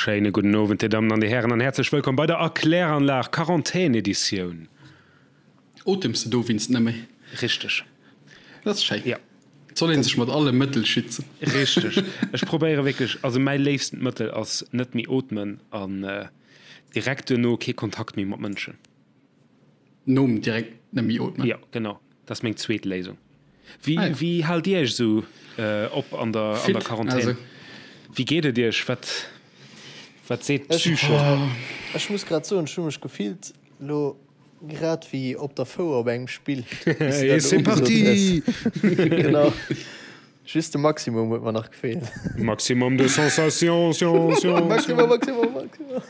Schéine gudden Owend, Dir Dammen an Dir Hären, an häerzlech wëllkomm bei der Erkläranlag Quarantän-Editioun. Otems de dowéinst net méi? Richteg. Dat ass schéin. Ja. Et soll een sech mat alle Mëttel schützen. Richteg. Ech probéiere wierklech, also mäi léifstent Mëttel ass net méi ootmen an direkt duerno kee Kontakt méi mat Mënschen. Nom direkt net méi ootmen? Jo, genau. Dat ass meng zweet Léisung. Wéi, ah, ja. wéi haalt Dir Iech esou äh, op an der, an der Quarantän? Also. Wéi geet et Iech? Wat, wat seet d'Psyche? Ech, oh, ech muss grad soen, ech hu mech gefillt lo grad wéi op der Fouer op engem Spill. Et c'est parti! Genau. Just de Maximum huet mer nach gefeelt. Maximum de sensation, sion, sion, Maximum, Maximum, Maximum.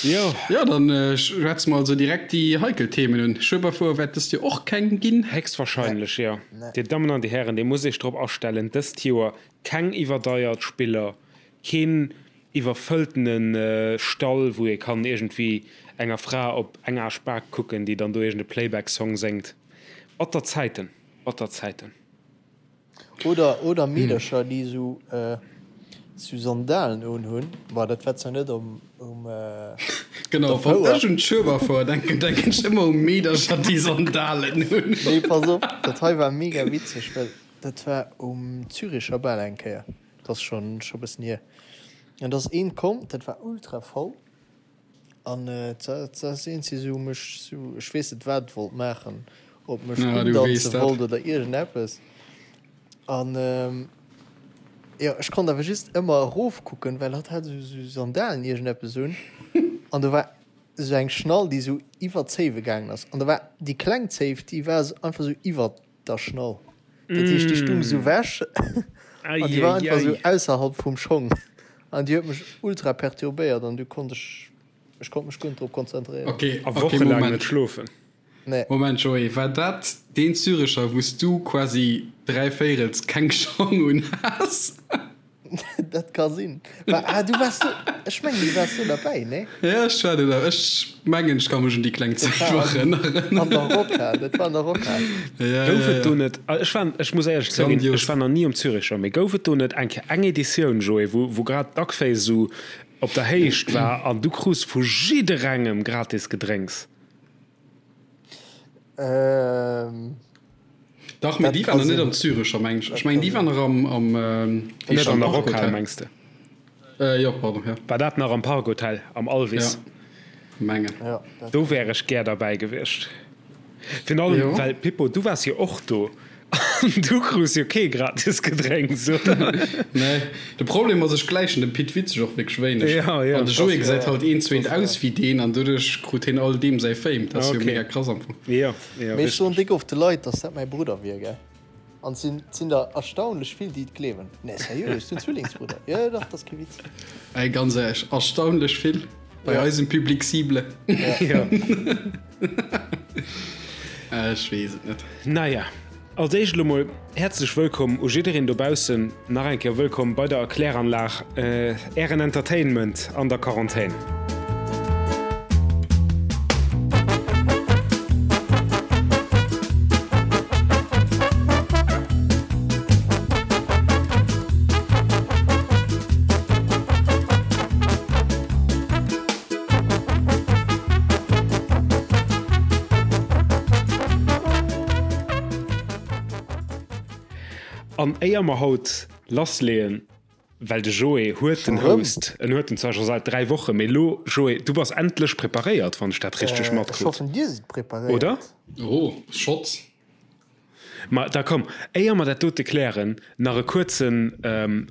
Jo. Jo, dann schwätze mer also direkt déi heikel Themen un. Schueberfouer wäert dëst Joer och keng ginn. Héchstwahrscheinlech, jo. Dir Dammen an Dir Hären, Dir musst Iech drop astellen, dëst Joer keng iwwerdeiert Spiller, keen iwwerfëlltene Stall, wou ee kann iergendwéi enger Fra op eng Aarschbak kucken, déi dann do iergend e Playback-Song séngt. Batter Zäiten. Batter Zäiten. Oder, oder Meedercher, déi esou, esou Sandalen unhunn. Bon, dat war zwar net um, um, op Genau, der wann Fouer. ech un d'Schueberfouer denken, denken ech ëmmer u Meedercher, déi Sandalen hunn. Nee, pass op, dat hei war mega witzeg, well dat war um Züricher Bal eng Kéier. Dat ass schonn, scho bëssen hier. An da ass een komm, dat war ultra voll. An et ass iergendwéi sou mech sou, ech weess net wat et wollt maachen, ob mech undanze wollt oder iergendeppes. An jo, ech konnt awer just ëmmer erofkucken, well hatt hat sou Sandalen iergendeppes un an do war sou eng Schnall déi sou iwwer d'Zéiwe gaangen ass an do war déi kleng Zéif déi war einfach sou iwwer der Schnall. Dat heescht déi stung sou wech an déi war einfach sou ausserhalb vum Schong an déi huet mech ultra perturbéiert an du konnt ech ech konnt mech guer net drop konzentréieren. Ok, A ok, wochelaang net Moment. schlofen. Nee. Moment Joé, war dat deen Zürecher wous du quasi dräivéirels keng Schong un has? Dat ka sinn. War, ah, du waars do, ech mengen, du waars do derbäi, nee? Ja, ech war do da. Ech mengen, ech ka mech un déi kleng Dat Zäit war nach an, erënneren. an der Rockhal, dat war an der Rockhal. Ja, Gouf ja, et do ja. net, ech war, ech muss éierlech zouginn, ech Grandios. war nach ni um Züricher, mee gouf et do net eng Kéier eng Editioun, Joé, wou, wou grad d'Duckface esou op der Héicht war an du krus vu jidderengem gratis Gedrénks? Ähm. Dach, mee Dat déi ka waren nach net sinn. am Zürecher, meng ech. Dat Ech mengen, ka déi sinn. waren nach am, am, wéi Net heescht an dat, der Rockhal, Parkhotel. mengs de? Äh, jo, pardon, ja. War dat nach am Parkhotel, am Alvis? Ja, mengen. Ja, dat Do ka wär sinn. ech gär derbäi gewiescht. Virun allem, Jo. well, Pippo, du waars jo och do an du krus jo kee gratis Gedrénks, oder? Nee, de Problem ass, ech gläichen dem Pit Witzeg och wierklech wéineg. Ja, ja. An de Das Joé gesäit wär, halt eent zu das eent wär. aus wéi deen an doduerch krut heen all deem säi Fame. Dat ass jo Okay. mega krass am Fong. Jo. Jo, Mee ech soen richteg. déck oft de Leit, dass dat mäi Brudder wier, gell? An et sinn, et sinn der erstaunlech vill, déi et gleewen. Nee, seriö, ech sinn Zwillingsbrudder. Jo, jo, dach, dat ass kee Witz. Ey, ganz éierlech, erstaunlech vill bei Ja. eisem Public cible. Ja. Jo. Ech weess et net. Naja, als éischt elo mol häerzlech wëllkomm u jiddereen dobaussen. Nach eng Kéier wëllkomm bei der Erkläranlag, Ären Entertainment an der Quarantän. An éier mer haut lassleeën, well de Joé huet den Scho rëm? Host, en huet en zwar scho säit 3 Wochen, mee elo, Joé, du bass endlech preparéiert, wann ech dat richteg Ech matkrut, hoffen, dir sidd oder? preparéiert. Oh, Schotz. Ma da komm, éier mer dat dote klären, nach e kuerze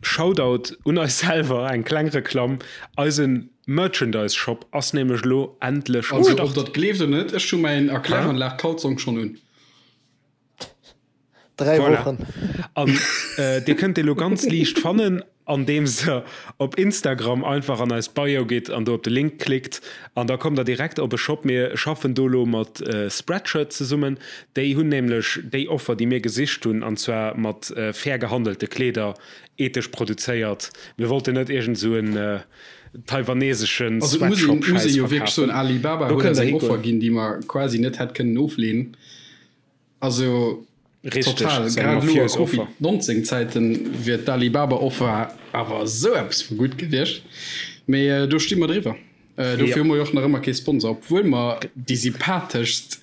Shoutout un eis selwer, eng kleng Reklamm, Eise Merchandise-Shop ass nämlech elo endlech um Also, ob Start. der et gleeft oder net, ech hu mäin Erkläranlag-Kalzong schonn un. 3 Voilà. Wochen. An dir kënnt dee lo ganz liicht fannen, andeems der op Instagram einfach an eis Bio gitt an do op de Link klickt an da kommt der direkt op e Shop. Mir schaffen do lo mat Spreadshirt zesummen. Déi hunn nämlech déi Offer, déi mir gesicht hunn, an zwar mat fair gehandelte Kleeder, ethesch produzéiert. Mir wollten net iergend esou en taiwaneseschen Also et muss een, muss Sweatshop-Schäiss ee jo wierklech soen, verkafen. Alibaba Do huet kënnt eis der eng Offer hikoen. ginn, déi mer quasi net hätt kënnen ofleenen. Also. Richteg, Total, ass eng grad elo a mafiös Offer. Covid 19 Zäiten wier d'Alibaba Offer awer esou eppes vu gutt gewiescht. Mee do sti mer driwwer. Dofir hu mer jo och nach ëmmer kee Sponsor, obwuel mer déi sympatheschst,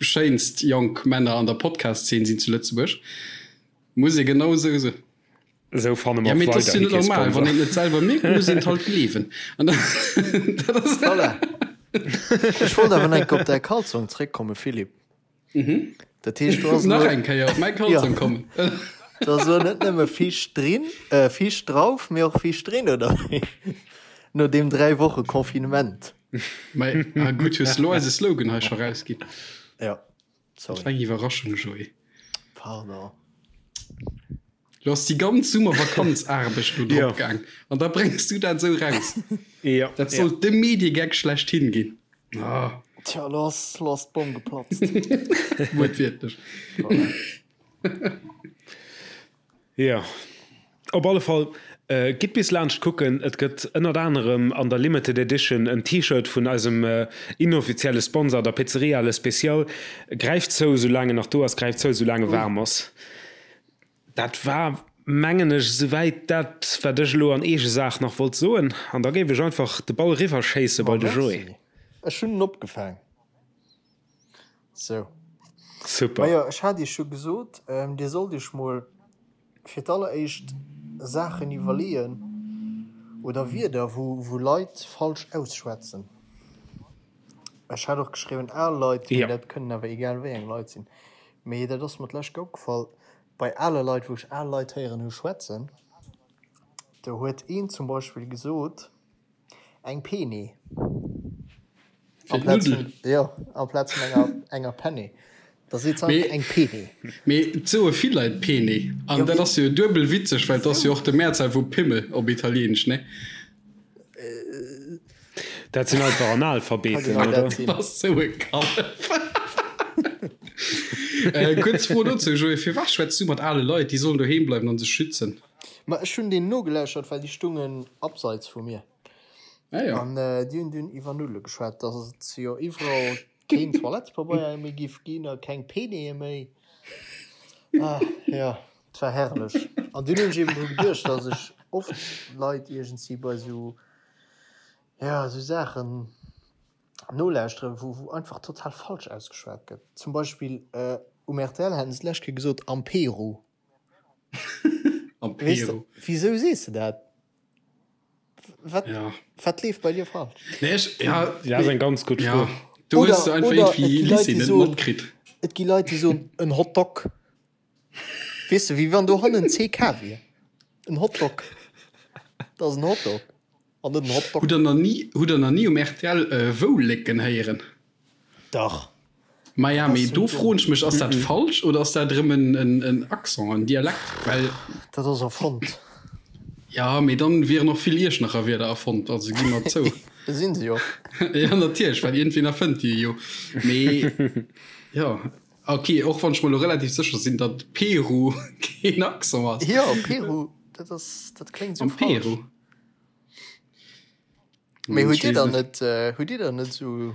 schéinst jonk Männer an der Podcast-Zeen sinn zu Lëtzebuerg. Muss ee genau esou soen. Esou fanne Ja, mer mee et ass jo weiderhi net kee normal, wann Sponsor. een et net selwer mierkt, muss een et halt gleewen. An dat ass. Voilà. Ech wollt awer nach eng Kéier op däi Kalzong zréckkommen, Philippe. Dat heescht, do ass Nach elo. eng Kéier op mäi Ja. Kalzong kommen. Do ass elo net nëmme Fisch drin, äh, Fisch drauf, mee och Fisch drin, oder wéi? No deem 3 Woche Confinement. Mei, ah gutt, hues de elo eise Slogan hei scho rausginn. Ja. Dat war Sorry. eng Iwwerraschung, Joé. Pardon. Lo ass déi ganz Summervakanzaarbecht do Ja. drop gaang an da bréngs du dat esou raus. Ja, Dat ja. sollt de Mediegag schlechthin ginn. Ah, Tja, lo ass, lo ass d'Bomm geplatzt. wuertwiertlech. Voilà. Jo, op alle Fall, gitt bis laanscht kucken. Et gëtt ënnert anerem an der Limited Edition en T-Shirt vun eisem inoffizielle Sponsor, der Pizzeria Le Special. Gräift zou, soulaang en nach do ass, gräift zou, soulaang e waarm ass. Dat war, mengen ech, esouwäit dat, wat ech elo an eege Saach nach wollt soen. An da géif ech einfach de Ball eriwwerschéisse Ma bei de Joé. merci, ech hunn en opgefaang. Sou. Super. Majo, ech hat iech jo gesot, dir sollt iech mol fir d'alleréischt Saachen iwwerleeën oder Wierder, wou wou Leit falsch ausschwätzen. Ech hat och geschriwwen al Leit, mee Ja. dat kënnen awer egal wéi eng Leit sinn. Mee dat ass mer d'lescht Kéier opgefall, bei ale Leit, wou ech al Leit héieren hu schwätzen, do huet een zum Beispill gesot, Eng Peni. Fir d'Nuddel. Jo, amplaz vun enger, enger Penne. Da seet se einfach eng Peni. Mee et soe vill Leit Peni. An dat ass jo duebel witzeg, well et ass jo och de Mehrzahl vu Pimmel op Italieenesch, ne? Dat sinn einfach Analphabeten, oder? Du bass sou e Kallef. Kuerz Fro dozou, Joé, Firwat schwätz du mat ale Leit? Déi sollen doheem bleiwen an sech schützen. Ma ech hunn deenen nogelauschert, well déi stungen abseits vu mir. Ah jo. An déi hunn dunn iwwer Nuddele geschwat, dass et jo iwwerall keen Toilettepabeier méi giff ginn a keng Peneeë méi. Ah jo, et war herrlech. An dunn hunn ech eben dru geduecht, dass ech oft Leit iergendwéi bei esou, jo, esou Saachen nolauschteren, wou, wou einfach total falsch ausgeschwat gëtt. Zum Beispill um rtl haten se d'lescht Kéier gesot am Peru. Am Weess de, Peru. wisou sees de dat? Wat, Ja. wat leeft bei dir falsch? Nee, ech, ja, Ja, ass eng ganz gutt ja. Fro. Do Oder, hues du einfach oder et irgendwie gi Leit, Lycée déi net soen, matkritt. et gi Leit, déi soen en Hotdog. Weess de, wéi wann do hannen CK wier. En Hotdog. Dat ass en Hotdog an net en Hotdog. Hutt der nach ni, hutt der nach ni um rtl Woulécken héieren? Dach. Maja, mee do froen ech mech, ass dat falsch oder ass dat erëm en Accent, en Dialekt? Well. Dat ass erfonnt. Ja, mee dann wieren och vill Iechternacher Wierder erfonnt, also gi mer zou. Sinn se jo. Ja, natierlech, well iergendween erfënnt déi jo. Mee jo, ok, och wann ech mer elo relativ sécher sinn, datt Peru keen Accent ass. Jo, Peru, dat ass, dat kléngt esou Am falsch. Peru. Mee hutt Dir dann net, hutt Dir dann net esou.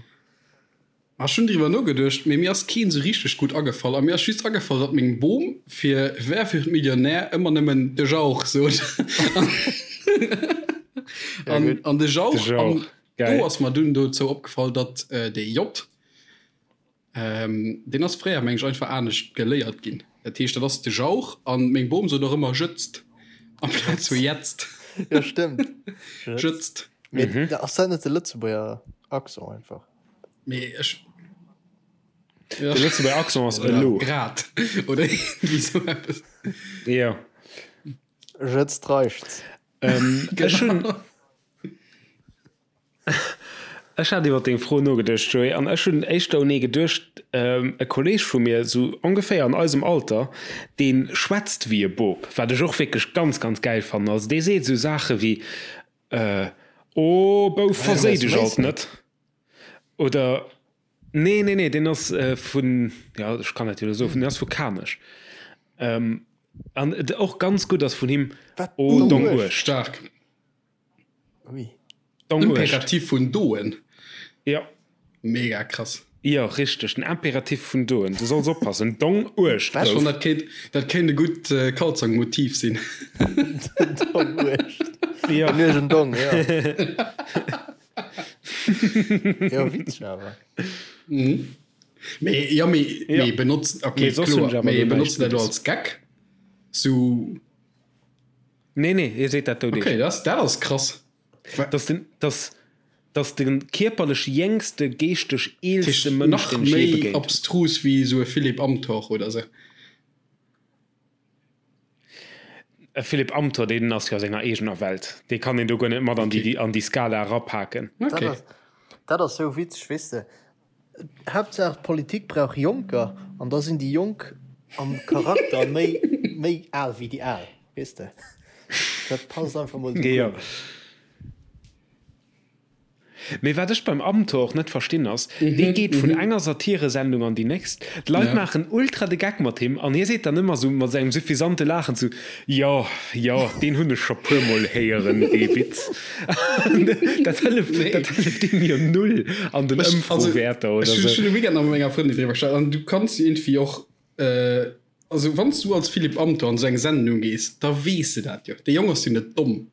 Ma ech hunn driwwer nogeduecht, mee mir ass keen sou richteg gutt agefall. A mir ass just agefall, datt meng Bom fir Wer wird Millionär ëmmer nëmmen de Jauch sot. An, an de Jauch, De an Jauch, geil. do ass mer dunn dozou opgefall, datt dee J, deen ass fréier, meng ech, einfach anescht geléiert ginn. Dat heescht, dat ass de Jauch an meng Bom sot och ëmmer jëtzt amplaz vu jetzt. Jo, stëmmt. Jëtzt. Mee ass dat net de Lëtzebuerger Accent einfach? Mee ech. De Lëtzebuerger Accent ass elo. Grad. Oder iergendwéi sou eppes. Jo. Jëtzt reichts. Ech hunn. Ech hat iwwer deng Fro nogeduecht, Joé, an ech hunn éischter un ee geduecht, e Kolleeg vu mir, sou ongeféier an eisem Alter, dee schwätzt wéi e Bop, wat ech och wierklech ganz, ganz gäil fannen. Also dee seet sou Saache wéi, Oh Bouf, verséi dech alt net! Oder, nee, nee, nee, deen ass vun, jo, ech kann dat jo elo soen, deen ass vu Kanech. An och ganz gutt ass vun him, Oh dong Uecht. Staark. Ui. Dong Uecht. Imperativ vun doen. Jo. Mega krass. Jo, richteg, den Imperativ vun doen. Du solls oppassen. Dong uecht gouf. Ech fannen, dat kéint, dat kéint e gutt Kalzong-Motiv sinn. Dong uecht. Jo. Den uergen Dong, jo. Jo, witzeg awer. Mee, jo, mee, mee benotzt, okay, Mee soss hunn ech kloer, awer mee do näischt benotzt dat elo Guddes. als Gag? Sou. Nee, nee, hie seet dat doudeg. Okay, dat, dat ass krass. Dass den, dass, dass de kierperlech jéngste, geeschteg eelste Mënsch, Nach deen ech jee méi begéint hunn. abstrus wéi esou e Philippe Amthor oder sou. E Philippe Amthor, deen ass jo a senger eegener Welt. Dee kann een do guer net mat an déi, an déi Skala erapaken. Dat Okay. ass, dat ass sou witzeg, weess de. Haaptsaach d'Politik brauch Jonker an da sinn déi Jonk am Charakter méi méi al wéi déi Al, weess de. Dat passt einfach mol esou guer net. Mee wat ech beim Amthor och net verstinn ass, dee geet vun enger Satiresendung an déi nächst, d'Leit maachen ultra de Geck mat him an hie seet dann ëmmer sou mat sengem suffisante Laachen sou, Jo, jo, deen hunn ech scho puer mol héieren, dee Witz. Dat hëlleft, dat hëlleft deem jo null an den Ëmfrowäerter oder Ech sou. hunn de Weekend nach mat menger Frëndin driwwer geschwat an du kanns jo iergendwéi och, also wann s du als Philippe Amthor an esou eng Sendung gees, da weess de dat jo. Dee Jong ass jo net domm.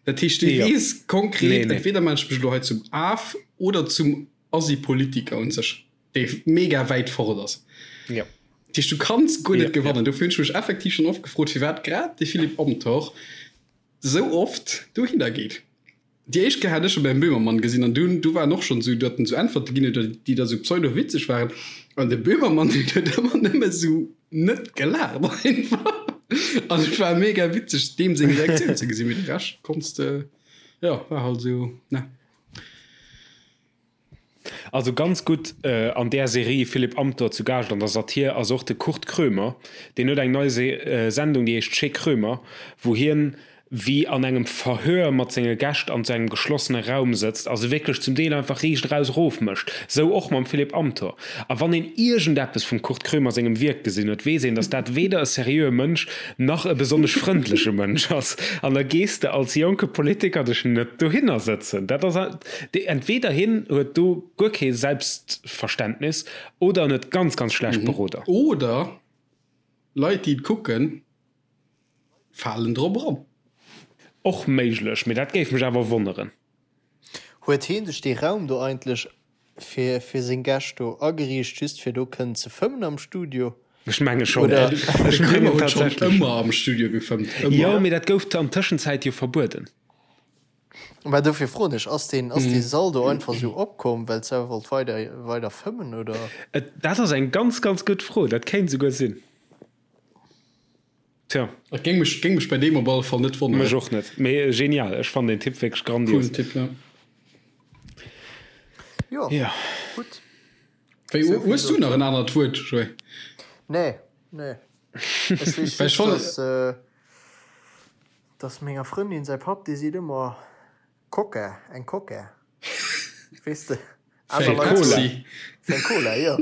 Dat heescht, dee weess konkret, entweder maachen ech mech elo hei zum Af oder zum Assi-Politiker un sech. dee mega wäit fort ass. Ja. Dat heescht, du kanns guer net Ja, gewannen. Dofir hunn ech mech effektiv schonn oft gefrot, firwat grad de Philippe Amthor sou oft dohinner geet. Déi éischt Kéier hat ech e beim Böhmermann gesinn an dunn, du war en och schonn sou, datt en sou Äntwerte ginn huet, déi da sou pseudo-witzeg waren. An de Böhmermann, deen huet ëmmer nëmme sou net gelaacht einfach. An et war mega witzeg, deem seng Reaktioun ze gesinn. Mee de Rescht konns de, jo, war halt sou, ne. Also ganz gutt an där Serie Philipp Amthor zu Gaascht an der Satir ass och de Kurt Krömer. Deen huet eng nei Sendung, déi heescht Chez Krömer, wou hien wéi an engem Verhör mat senge Gäscht an sou engem geschlossene Raum sëtzt a se wierklech zum Deel einfach riicht eraus erofmécht. Sou och mam Philipp Amthor. A wann een iergendeppes vum Kurt Krömer sengem Wierk gesinn huet, weess een, datt dat weder e seriöe Mënsch nach e besonnesch frëndleche Mënsch ass. An da gees de als jonke Politiker dech net dohinner sëtzen. Dat ass. Entweder hien huet do guer kee Selbstverständnis oder en huet ganz, ganz schlecht Beroder. Oder Leit, déi et kucken, falen drop eran. Och méiglech, mee dat géif mech awer wonneren. Huet heen sech dee Raum do eigentlech fir fir seng Gäscht do ageriicht, just fir do kënnen ze fëmmen am Studio? Ech menge schonn. Oder? Ech De Krömer mengen huet schonn tatsächlech. ëmmer am Studio gefëmmt, ëmmer. Jo, mee dat gouf an Tëschenzäit jo verbueden. Mä dofir froen ech, ass deen, ass dee Sall do einfach esou opkomm, well d'Sau wollt weider, weider fëmmen, oder? Et, dat ass eng ganz, ganz gutt Fro. Dat kéint esouguer sinn. Tja. Et géing mech, géing mech bei deem op alle Fall net wonneren. Mech och net. Mee genial. Ech fannen den Tipp wierklech grandios. Coolen Tipp, ja. Jo, Ja. gutt. Wéi, Esou vill hues du nach dozou. en anert Wuert, Joé? Nee, nee. Ech weess Well ech just, fannen. dass. Dass menger Frëndin säi Papp, dee seet ëmmer Coca, eng Coca, weess de, aner Leit Cola. soen fir eng Cola, jo.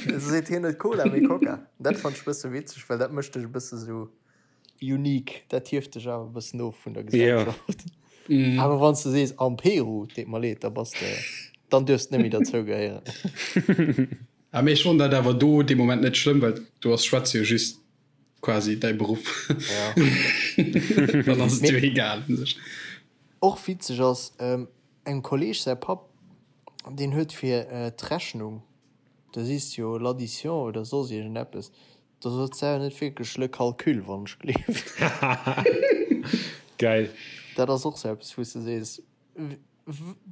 Da seet hien net Cola, mee Coca. Dat fannt ech e bësse witzeg, well dat mécht dech e bësse sou unique, dat hieft dech awer e bëssen of vun der Gesellschaft. Awer wann s de sees am Peru, deet mer leed, da bass de, dann duerfs de net méi derzou gehéieren. Ah, mee ech fonnt dat awer do dee Moment net schlëmm, well du ass schwätze jo just quasi däi Beruff. Ja. Dann ass et jo egal un sech. Och witzeg ass, engem Kolleg säi Papp, deen huet fir d'Rechnung, da sees de jo l'addition oder soss iergendeppes, da sot se net wierklech le calcul, wann ech gleeft. Geil. Dat ass och sou eppes, wou s de sees,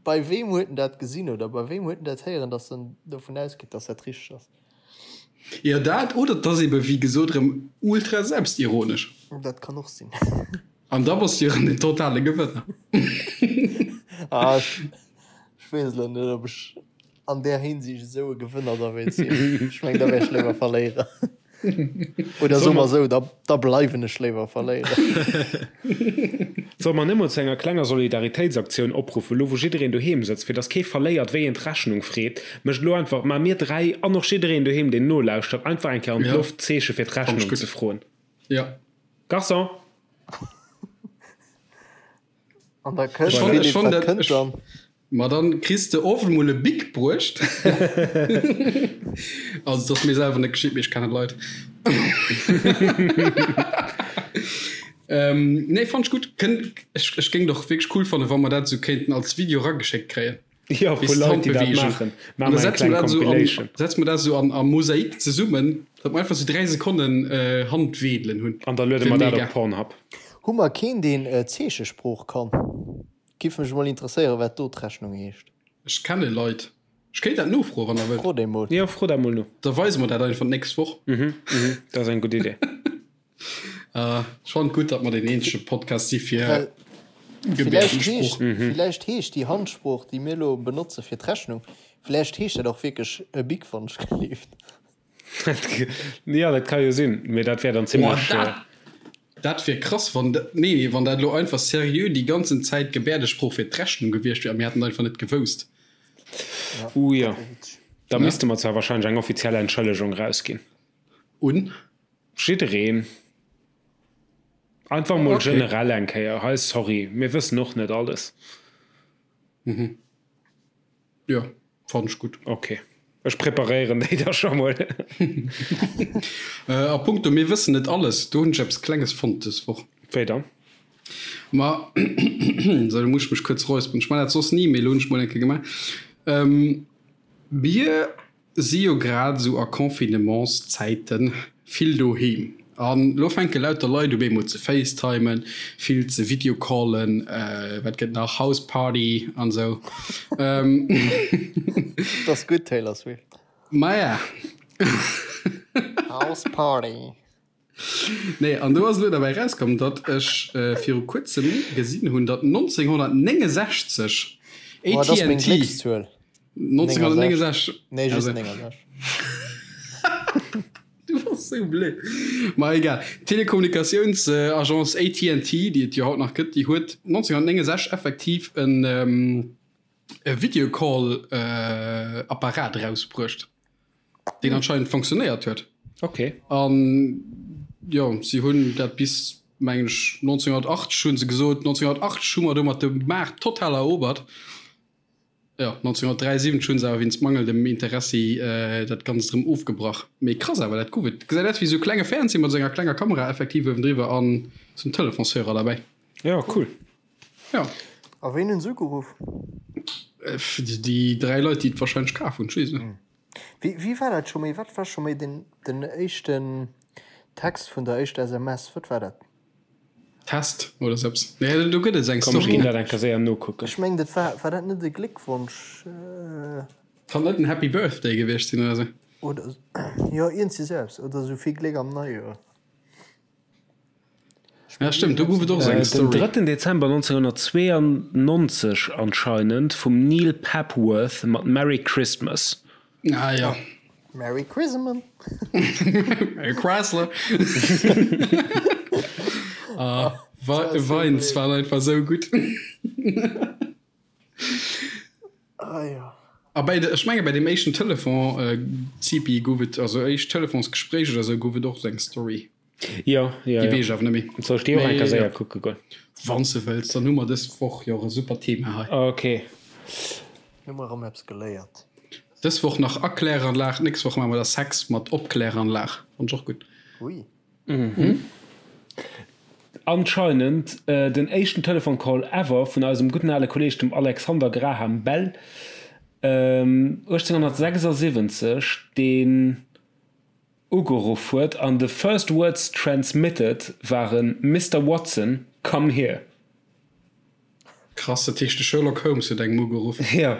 Bei weem huet en dat gesinn oder bei weem huet en dat héieren, datt en dovun ausgeet, datt dat richteg ass? Jo, dat oder et ass ebe wéi gesot erëm ultra selbstironesch. Dat kann och sinn. An da bass du jo erëm den totale Gewënner. Ah, ech, ech weess elo net, ob ech an där Hinsicht esou e Gewënner da wéilt sinn. Ech meng, da wär ech léiwer Verléierer. Oder soe mer esou, da, da bleiwen ech léiwer Verléierer. Solle mer net mol zu enger klenger Solidaritéitsaktioun opruffen, elo wou jiddereen doheem sëtzt, fir dass kee verléiert, wéi een d'Rechnung freet? Mécht elo einfach, maache mir 3 an och jiddereen doheem, deen nolauschtert, einfach eng Kéier an d'Loft d'Zeeche fir d'Rechnung ze froen. Ja. Garçon! An da kënnt, Ech fannen, Philippe, wat dat, kënnt dann? Ma dann kriss de oft emol e Bic bruecht. Also et ass mir selwer net geschitt, mee ech kennen Leit. Nee, fannt ech gutt. Kënnt, ech, ech géing et och wierklech cool fannen, wa mer dat esou kéinten als Video erageschéckt kréien. Jo, vu Leit, déi dat maachen. Maache mer eng kleng Compilation. Setze mer dat esou an a Mosaik zesummen, datt mer einfach esou 3 Sekonnen Handweedelen hunn. An da luede mer dat op Pornhub. Hu mer keen, deen Zeechesprooch kann? Giff mech mol interesséieren wat do d'Rechnung heescht. Ech kenne Leit. Ech kéint dat nofroen, wann der wëllt. Fro déi mol. Jo, fro dat mol no. Da weise mer dat einfach d'nächst Woch. Mhm, mhm, dat ass eng gutt Idee. Ech fannen et gutt, datt mer deen eenzege Podcast si fir Well villäicht heescht, Gebäerdensprooch. villäicht heescht déi Handsprooch, déi mir elo benotze fir d'Rechnung, villäicht heescht dat och wierklech e Bic wann ech gleeft. Jo, dat ka jo sinn, mee dat wär dann zimlech. Boah, dat, dat wier krass, wann dat, nee, nee, wann dat elo einfach seriö déi ganzen Zäit Gebäerdesprooch fir d'Rechnung gewiescht wier a mir hätten et einfach net gewousst. Uh jo, da misste mer zwar wahrscheinlech eng offiziell Entschëllegung rausginn. Un? Jiddereen. Einfach mol generell eng Kéier, hei, sorry, mir wëssen och net alles. Mhm. Jo, fannen ech gutt. Ok, ech preparéieren déi da scho mol. A punkto mir wëssen net alles, do hunn ech eppes Klenges fonnt dës Woch. Wéi dann? Ma, sou, do muss ech mech kuerz räusperen. Ech man dat soss ni, mee elo hunn ech mol eng Kéier gemaach. Mir Si jo grad esou a Confinementszäiten vill doheem an lo fänke lauter Leit u bemol ze facetimen, vill ze videocallen, wat gëtt nach, Houseparty an esou. Dat ass gutt, Taylor Swift. Maja. Houseparty. Nee, an do ass elo derbäi erauskomm, datt ech viru kuerzem gesinn hunn, datt 1969 Oh, dat ass meng AT&T Gléckszuel. 1969 Nee, just also, 69. Du bass sou blöd. Ma egal. D'Telekommunikatiounsagence AT&T, déi et jo haut nach gëtt, déi huet 1969 effektiv en e Videocall-Apparat erausbruecht. deen anscheinend funktionéiert huet. Okay. An jo, si hunn dat bis mengen ech 1980 hunn se gesot, 1980 hu mer domat de Maart total erobert. Jo, 1973 hunn se awer wéinst mangelndem Interessi dat Ganzt erëm ofgebrach. Mee krass awer, dat gouf et. Gesäit aus wéi esou e klenge Fernseh mat esou enger klenger Kamera effektiv uewendriwwer an esou en Telefonshörer derbäi. Jo, cool. Jo. A ween hunn se ugeruff? Déi 3 Leit, déi et warscheinlech kaf hunn, ech weess et net. Wéi, wéi war dat scho méi? Wat war scho méi den, den éischten Text vun der éischter SMS? Wat war dat? Test oder sou eppes. Nee, do gëtt et eng Komm, ech Story, ginn ne? dat eng Kéier séier nokucken. Ech mengen, dat war, war dat net e Gléckwonsch? Kann net en Happy Birthday gewiescht sinn oder sou? Oder, jo, iergendsi sou eppes. Oder sou vill Gléck am Neijoer. Ja stëmmt, do gouf et och esou eng Den Story. 3 Dezember 1992 anscheinend vum Neil Papworth mat Merry Christmas. Ah ja. Merry Christmas. Merry Chrysler. Ah, Vines waren einfach esou gutt. Ah ja. A bei de, ech menge bei dem éischten Telefon, äh, Zipi, gouf et, also éischt Telefonsgespréich oder sou, gouf et och sou eng Story. Jo, jo, Déi jo. weess ech awer net méi. Soll ech déi och eng Mee Kéier jo. séier kucke goen? Wann s de wëlls, dann hu mer dës Woch jo och e super Thema hei. Ok. Hu mer erëm eppes geléiert. Dës Woch nach Erkläranlag, d'nächst Woch maache mer da Sex mat Opkläranlag. Fannt ech och gutt. Ui. Anscheinend den éischten Telefon-Call ever vun eisem gudden ale Kolleeg, dem Alexander Graham Bell, 1876, deen ugeruff huet an the first words transmitted waren Mister Watson, come here. Krass, dat heescht de Sherlock Holmes huet engem ugeruff. Jo.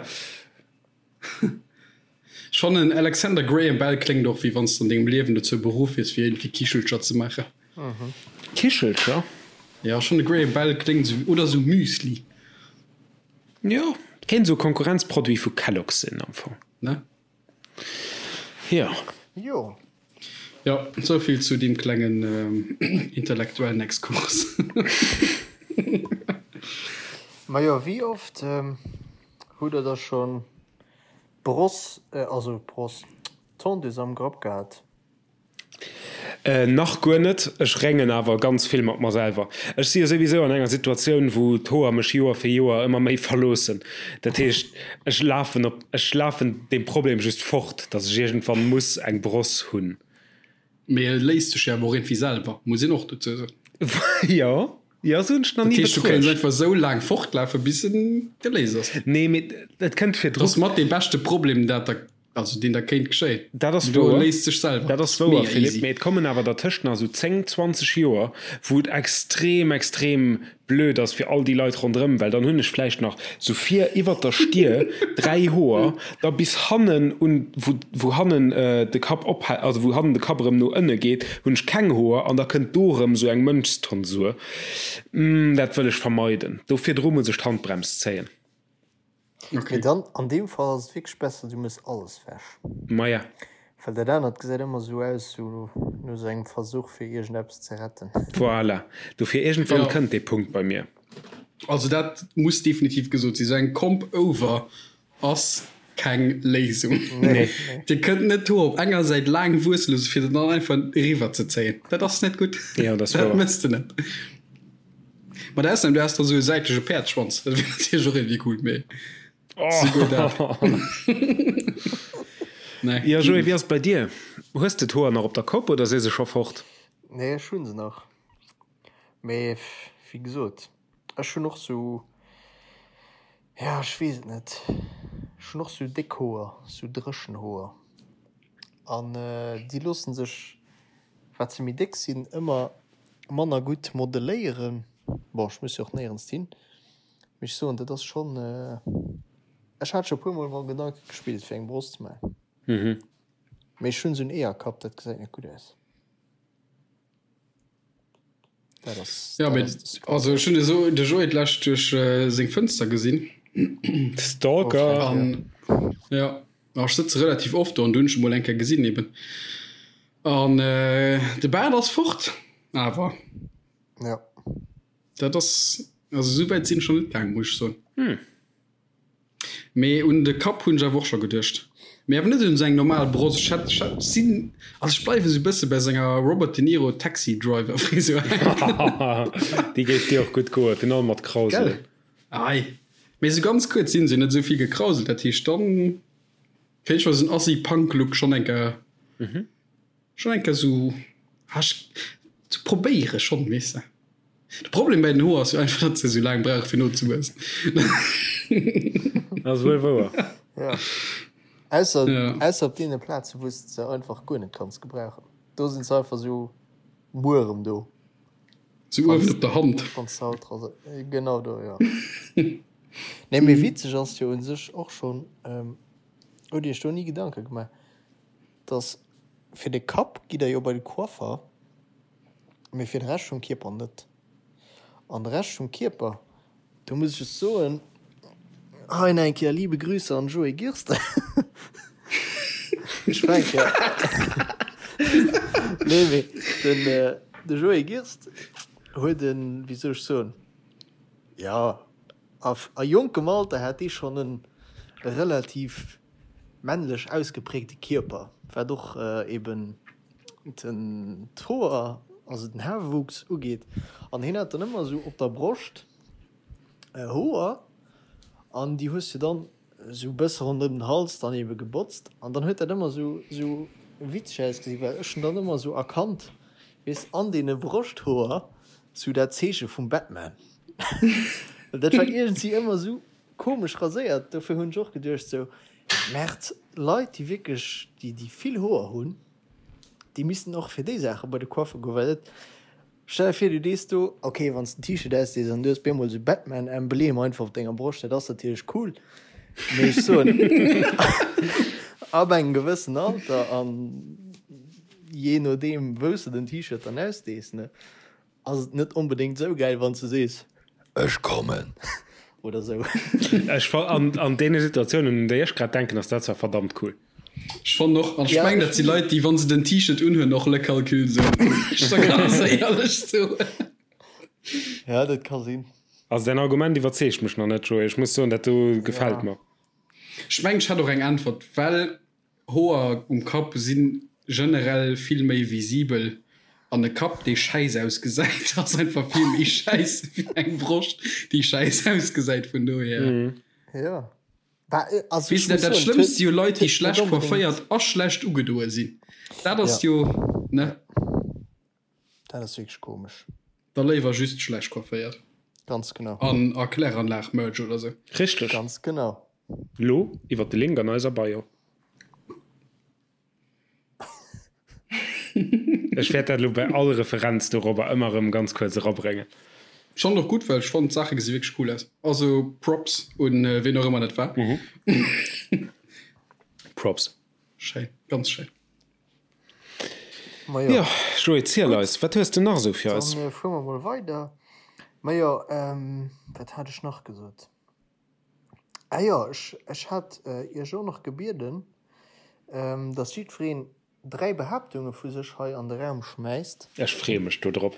Ech fannen Alexander Graham Bell kléngt och wéi wann s de an dengem Liewen dozou beruff wiers fir iergendwéi Kichelcher ze maachen. Kichelcher? Jo, ech fannen Graham Bell kléngt esou, oder esou Müsli. Jo, kéint esou e Konkurrenzproduit vu Kellogg's sinn am Fong. Ne? Jo. Jo. Jo, souvill zu deem klengen intellektuellen Exkurs. Majo, wéi oft hutt der da schonn d'Bross, also d'Bross, d'Tondeuse am Grapp gehat? Nach guer net. Ech réngen awer ganz vill mat mer selwer. Ech si jo souwisou an enger Situatioun, wou d'Hoer mech Joer fir Joer ëmmer méi verloossen. Dat heescht, ech lafen op, ech lafen deem Problem just fort, datt ech iergendwann muss eng Bross hunn. Mee e léist sech jo awer och iergendwéi selwer, muss een och dozou soen. Jo, jo, esou hunn ech nach ni betruecht. Dat heescht, du kéints einfach esou laang fortlafen, bis en geléist ass. Nee, mee et kënnt virdru. Dat ass mat dee beschte Problem, dat der Also deen der kéint geschéien. Dat ass wouer. Léist sech selwer. Dat ass wouer, Philippe, mee et kommen awer dertëscht nach esou 10, 20 Joer, wou et extrem, extrem blöd ass fir all déi Leit ronderëm, well dann hunn ech vläicht nach esou vir iwwert der Stier 3 Hoer, da bis hannen un, wou, wou hannen de Kapp ophält, also wou hannen de Kapp erëm no ënne geet, hunn ech keng Hoer an da kënnt do erëm esou eng Mönchstonsur. Dat wëll ech vermeiden. Do virdru muss ech d'Handbrems zéien. Okay. Mee dann an deem Fall ass et wierklech besser du mëss alles wech. Maja. Well dat anert gesäit ëmmer sou aus sou no sou engem Versuch fir iergendeppes ze retten. Voilà, dofir iergendwann ja. kënnt dee Punkt bei mir. Also dat muss definitiv gesot sinn, sou eng Comp over ass keng Léisung. Nee. Dir kënnt net d'Hoer op enger Säit laang wuesse loosse fir se dann einfach eriwwer ze zéien. Dat ass net gutt. Ja, dat ass wouer. Dat mëss de net. Mat Ausnam du has da sou e säitleche Päerdsschwanz, dat wier natierlech och iergendwéi cool, mee souguer dat. Nee. Jo Joé, wéi ass et bei dir? Hues de d'Hoer nach op der Kopp oder si se scho fort? Nee, ech hu se nach, mee wéi gesot, ech hunn och sou, ja ech weess et net, ech hunn och sou déck Hoer, sou dréchen Hoer an déi loosse sech, wat se méi déck sinn, ëmmer manner gutt modeléieren. Bon, ech muss jo och néierens hin, mee ech soen, dat ass schonn, ech hat scho puer mol mam Gedanke gespillt fir eng Bross ze maachen, mee ech hunn esou en Eeërkapp, dat gesäit net gutt aus. Dat ass, Ja, dat ass de Secret. Also ech hunn esou de Joé d'lescht duerch seng Fënster gesinn. Stalker! An ja, ech sëtze relativ oft do an du hunn ech e mol eng Kéier gesinn eben. An de Baart ass fort, awer. Ja. Dat ass, also esou wäit sinn ech nach net gaangen, muss ech soen. Hm. Mee un de Kapp hunn ech awer och scho geduecht. Mee awer net un esou eng normal Bross. Ech hätt, ech hätt, sinn, also ech bleiwen esou e bësse bei senger Robert De Niro Taxi Driver Frisur hänken. Déi géif dir och gutt goen, virun allem mat Krausel. Gell? Ei. Mee esou ganz kuerz sinn se net esou vill gekrauselt, dat heescht dann. Kéint ech mer esou en Assi-Punk-Look schonn eng Kéier, schonn eng Kéier esou, ah, ech, ze probéiere schonn, weess de. De Problem bäi den Hoer ass jo einfach, datt se esou laang brauche fir nozewuessen. Dat ass wuel wouer. Ja. Ausser, ja. Ausser op deene Plaze, wou s de se einfach guer net kanns gebrauchen. Do sinn se einfach esou muerem do. Sou uewen op der Hand. Wann s de haut rase, genau do, jo. Nee, mee witzeg ass jo un sech och schonn, hutt Iech do ni Gedanke gemaach, dass fir de Kapp gitt der jo bei de Coiffer, mee fir de Rescht vum Kierper net. An de Rescht vum Kierper, do muss ech just soen, hei nach eng Kéier liebe Grüße an Joé Girster. Ech war eng Kéier, nee mee den de Joé Girst huet en, wéi soll ech soen, jo a jonkem Alter hat dee schonn en relativ männlech ausgeprägte Kierper, wat och eben den d'Hoer, also den Haarwuchs ugeet. An hien hat dann ëmmer esou op der Broscht Hoer an déi hues du dann esou e bësse ronderëm den Hals dann ebe gebotzt an dann huet dat ëmmer esou esou witzeg ausgesinn, well ech hunn dann ëmmer esou erkannt, weess, an deene Broschthoer sou dat Zeeche vum Batman. Well dat war iergendwéi ëmmer esou komesch raséiert, dofir hunn ech och geduecht sou, Merd, Leit déi wierklech déi déi vill Hoer hunn, déi missten och fir déi Saache bei de Coiffer goen, well dat, stell der vir du dees do, ok wann s de en T-Shirt ausdees an du hues bemol sou Batman-Emblem einfach op denger Broscht, dat ass natierlech cool, mee ech soen ab engem gewëssen Alter an jee nodeem wou s de den T-Shirt dann ausdees, ne. Ass et net onbedéngt sou gäil wanns de sees ech kommen oder sou. Ech fa an an deene Situatiounen un déi ech grad denken ass dat zwar verdammt cool. Ech fannen och, an ech mengen dat si Leit déi wann se den T-Shirt unhunn och Le Calcul soen, ech da ganz éierlech soen. Ja dat ka sinn. Also däin Argument iwwerzeegt mech nach net Joé, ech muss soen dat do gefält mer. Ech mengen ech hätt och eng Äntwert, well Hoer um Kapp si generell vill méi visibel. An e Kapp, dee schäiss ausgesäit, ass einfach vill méi schäiss wéi eng Broscht, déi schäiss ausgesäit. Vun dohier. Jo. Bah, also ech muss soen, dat Schlëmmst si jo Leit, déi schlecht coifféiert a schlecht ugedoe sinn. Dat ass jo, ne? Dat ass wierklech komesch. Da léiwer just schlecht coifféiert. Ganz genau. An a Kläranlag-Merch oder sou. Richteg. Ganz genau. Lo iwwert de Link an eiser Bio. Ech wäert dat elo bei all Referenz dorobber ëmmer erëm ganz kuerz erabréngen. Ech fannen och gutt, well ech fannen d'Saache gesi wierklech cool aus. Also Props un ween och ëmmer dat war. Props. Schéin, ganz schéin. Majo. Jo, Joé, ziel eis, wat hues de nach esou fir eis? Dann fuere mer mol weider. Majo, wat hat ech nach gesot? Ah jo, ech, ech hat Iech och nach gebieden, dass jiddwereen 3 Behaaptunge vu sech hei an de Raum schmäisst. Ech freeë mech do drop.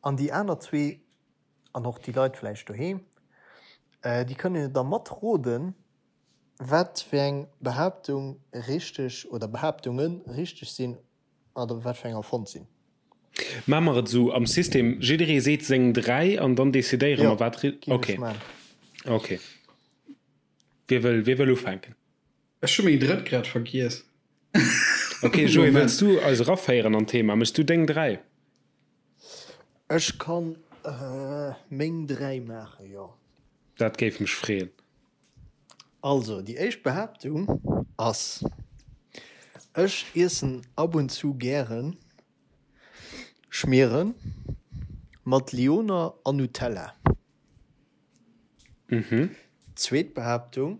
An déi aner zwee, an och déi Leit vläicht doheem, déi kënnen jo da matroden, wat fir eng Behaaptung richteg oder Behaaptunge richteg sinn oder wat fir eng erfonnt sinn. Maache mer et esou am System, jidderee seet seng 3 an dann decidéiere mer wat ri. Jo, géif ech Okay. maachen. Okay. Wie wëll, wie wëll ufänken? Ech hu meng drëtt grad vergiess. Okay, Joé, wëlls du eis eraféieren an d'Thema? Méchs du deng 3? Ech kann meng 3 maachen, jo. Dat géif mech freeën. Also, déi éischt Behaaptung ass, Ech iessen ab und zu gären Schmieren mat Lyoner an Nutella. Zweet Behaaptung,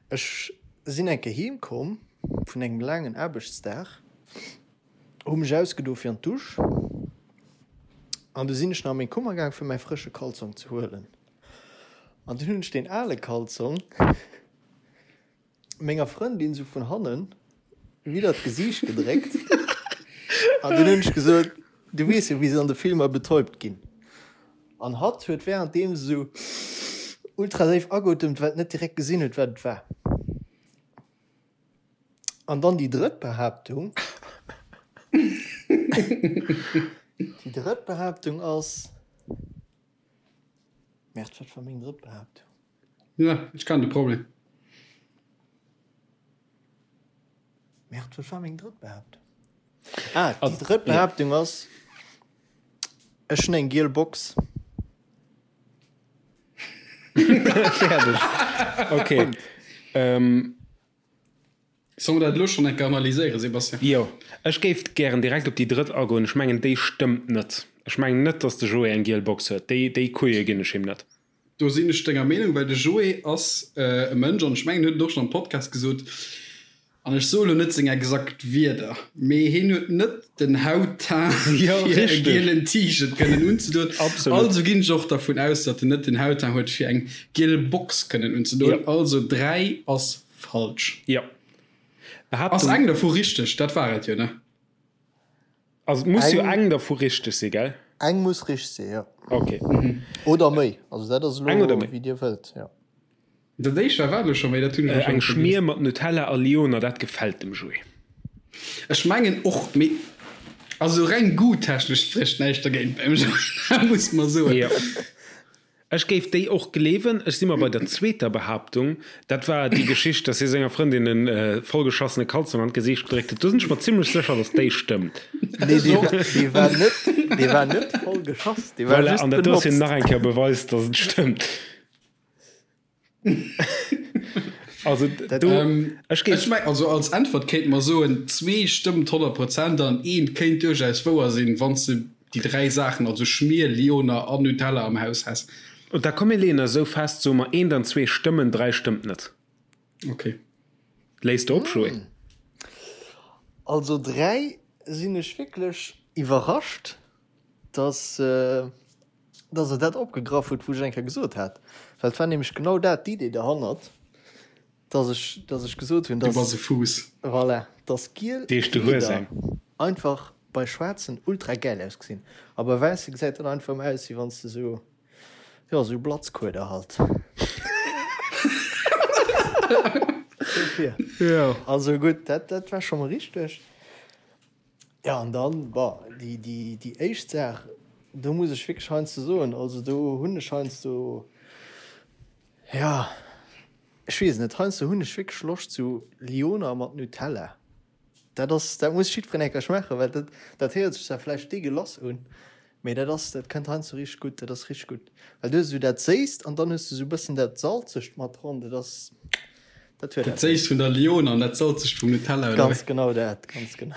Ech sinn eng Kéier heem komm vun engem laangen Aarbechtsdag, hu mech ausgedo fir an d'Dusch an du sinn ech nach a meng Kummer gaang fir mäi frësche Kalzong ze huelen. An dunn hunn ech deen ale Kalzong menger Frëndin sou vun hannen widder d'Gesiicht gedréckt an dunn hunn ech gesot, Du weess jo wéi se an de Filmer betäubt ginn. An hatt huet währenddeem sou ultra séif ageotemt, well et net direkt gesinn huet wat et war. An dann déi drëtt Behaaptung, déi drëtt Behaaptung ass, Merde, wat war meng drëtt Behaaptung? Ja, ech kennen de Problem. Merde, wat war meng drëtt Behaaptung? Ah, déi drëtt Behaaptung ass, ech hunn eng giel Box. Fäerdeg. Okay. Ähm. Solle mer dat elo schonn eng Kéier analyséieren, Sébastien? Jo, ech géif gären direkt op déi drëtt agoen. Ech mengen, déi stëmmt net. Ech mengen net, dass de Joé eng giel Box huet. Déi, déi Couille ginn ech him net. Do sinn ech denger Meenung, well de Joé ass e Mënsch, an ech mengen, en huet et och schonn am Podcast gesot, an ech soe lo net seng exakt Wierder, mee hien huet net den Hautteint, fir e gielen T-Shirt kënnen unzedoen. Also ginn ech och dervun aus, datt en net den Hautteint huet, fir eng giel Box kënnen unzedoen. Also 3 ass falsch. Jo. Ass eng dervu richteg? Dat war et jo, ne? Also et muss jo eng dervu richteg si, gell? Eng muss richteg si, jo. Ok. Oder méi. Also dat ass elo wéi Dir wëllt, jo. Dat éischt war wat elo scho méi? Dat hunn ech elo scho Eng Schmier mat Nutella a Lyoner, dat gefält dem Joé. Ech mengen och, mee also reng goût-technesch sprécht näischt dergéint beim Joé, dat muss mer soen. Jo. Ech géif déi och gleewen. Ech si mer bei der zweeter Behaaptung, dat war déi Geschicht, dass hie senger Frëndin e vollgeschassene Kalzong an d'Gesiicht gedréckt huet. Do sinn ech mer zimlech sécher, dass déi stëmmt. Nee, dee war, dee war net, dee war net voll geschoss, dee war Voilà, just an dat do ass jo benotzt. nach eng Kéier Beweis, dass et stëmmt. Also do, ech géif. Ech meng, also als Äntwert kéinte mer soen, zwee stëmmt 100 Prozent an eent kéint duerchaus wouer sinn, wann s de déi dräi Saachen, also Schmier, Lyoner an Nutella am Haus häss. Und da komm mir leeën eis esou fest, soe mer eent an zwee stëmmen, dräi stëmmt net. Ok. Léis de op, Joé? Also dräi sinn ech wierklech iwwerrascht, dass. dass e dat opgegraff huet, wou ech eng Kéier gesot hat, well et war nämlech genau dat d'Idee derhannert, dass ech, dass ech gesot hunn, Du dass, bass e Fuuss. voilà, dass giel Deeg du hues Kleeder eng. einfach bei schwaarzen ultra gäil ausgesinn a bei wäisse gesäit dat einfach ëmmer aus, wéi wann s de sou, jo, sou Blatzkueder halt. Dofir. Jo. Also gutt, dat, dat war scho mol richteg. Jo, an dann, bon, déi, déi, déi éischt Saach, do muss ech wierklech heiansdo soen, also do hunn ech heiansdo, jo, ech weess et net, heiansdo hunn ech wierklech Loscht zu Lyoner mat Nutella. Dat ass, dat muss jiddwereen eng Kéier schmaachen, well dat, dat héiert sech zwar vläicht deegelass un, mee dat ass, dat kënnt heiansdo richteg gutt, dat ass richteg gutt. Well du hues esou dat Séisst an dann hues de esou e bëssen dat Salzegt mat dran, dat ass, Dat huet Dat Séisst vun der Lyoner an dat Salzegt vum Nutella, oder wéi? Ganz genau dat, ganz genau.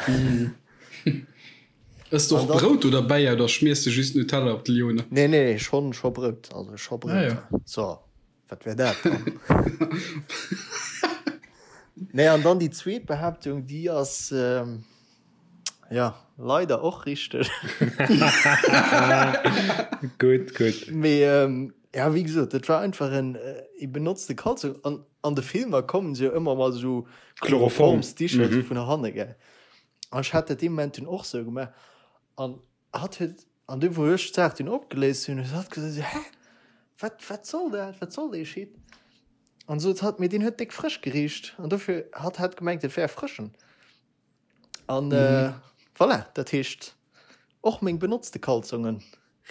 Ëss de och Brout do derbäi oder schmiers de just Nutella op d'Lyoner? Nee, nee, schonn, scho Brout, also scho Brout. Ah, ja. So, wat wär dat dann? Nee, an dann déi zweet Behaaptung, déi ass, jo, leider och richteg. Gutt, gutt. Mee, ja, wéi gesot, dat war einfach en, ee benotzte Kalzong. An An de Filmer kommen se jo ëmmer mat esou Chloroformsdicher mm -hmm. vun hanne gell. An ech hat dat dee Moment dunn och sou gemaach. An hatt huet an du wou ech d'Saach dunn opgeléist hunn, huet hatt gesot hä wat wat soll dat wat soll dee Shit? An sot hatt mee deen huet déck frësch gericht an dofir hatt hat gemengt et wär frëschen. An mhm. äh, voilà, dat heescht och meng benotzte Kalzongen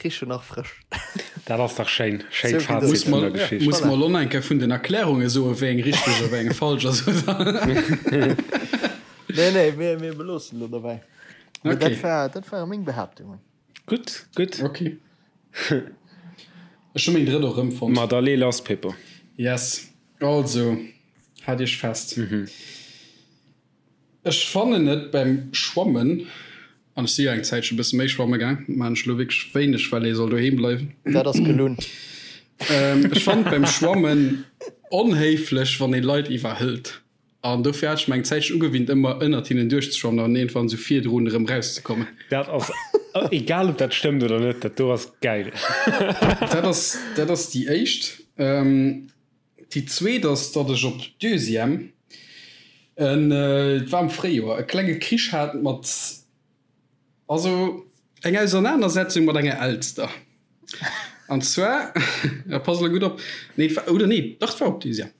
richen nach frësch. Dat ass dach schéin. Schéin so Fazit vun der Geschicht. Muss mer lo eng Kéier vun den Erklärunge soe wéi eng richteg a wéi eng falsch ass. Nee, nee, mir, mir beloossen lo dobäi. Okay. Dat war, dat ware meng Behaaptungen. Gutt, gutt. Okay. Ech hu meng drëtt och erëmfonnt. Ma da lee lass, Pippo. Yes. Also, haalt iech fest. Mhm. Ech fannen et beim Schwammen, an ech si jo eng Zäitchen e bësse méi schwamme gaang, maan ech elo wierklech wéineg, well ee soll doheem bleiwen. Dat ass gelunn. Ech fannen et beim Schwammen onhéiflech, wann ee Leit iwwerhëlt. An dofir hat ech mer eng Zäitchen ugewinnt, ëmmer ënnert hinnen duerchzeschwammen an iergendwann esou virdrun erëm rauszekommen. Dat ass, egal ob dat stëmmt oder net, dat do ass gäil. Dat ass, dat ass déi éischt. Déi zweet ass, datt ech op Deuxième, en, et war am Fréijoer, e klenge Krich hat mat, also eng Ausernanersetzung mat enger Elster. An zwar, ja pass elo gutt op, nee et war, oder nee, dach et war op Deuxième.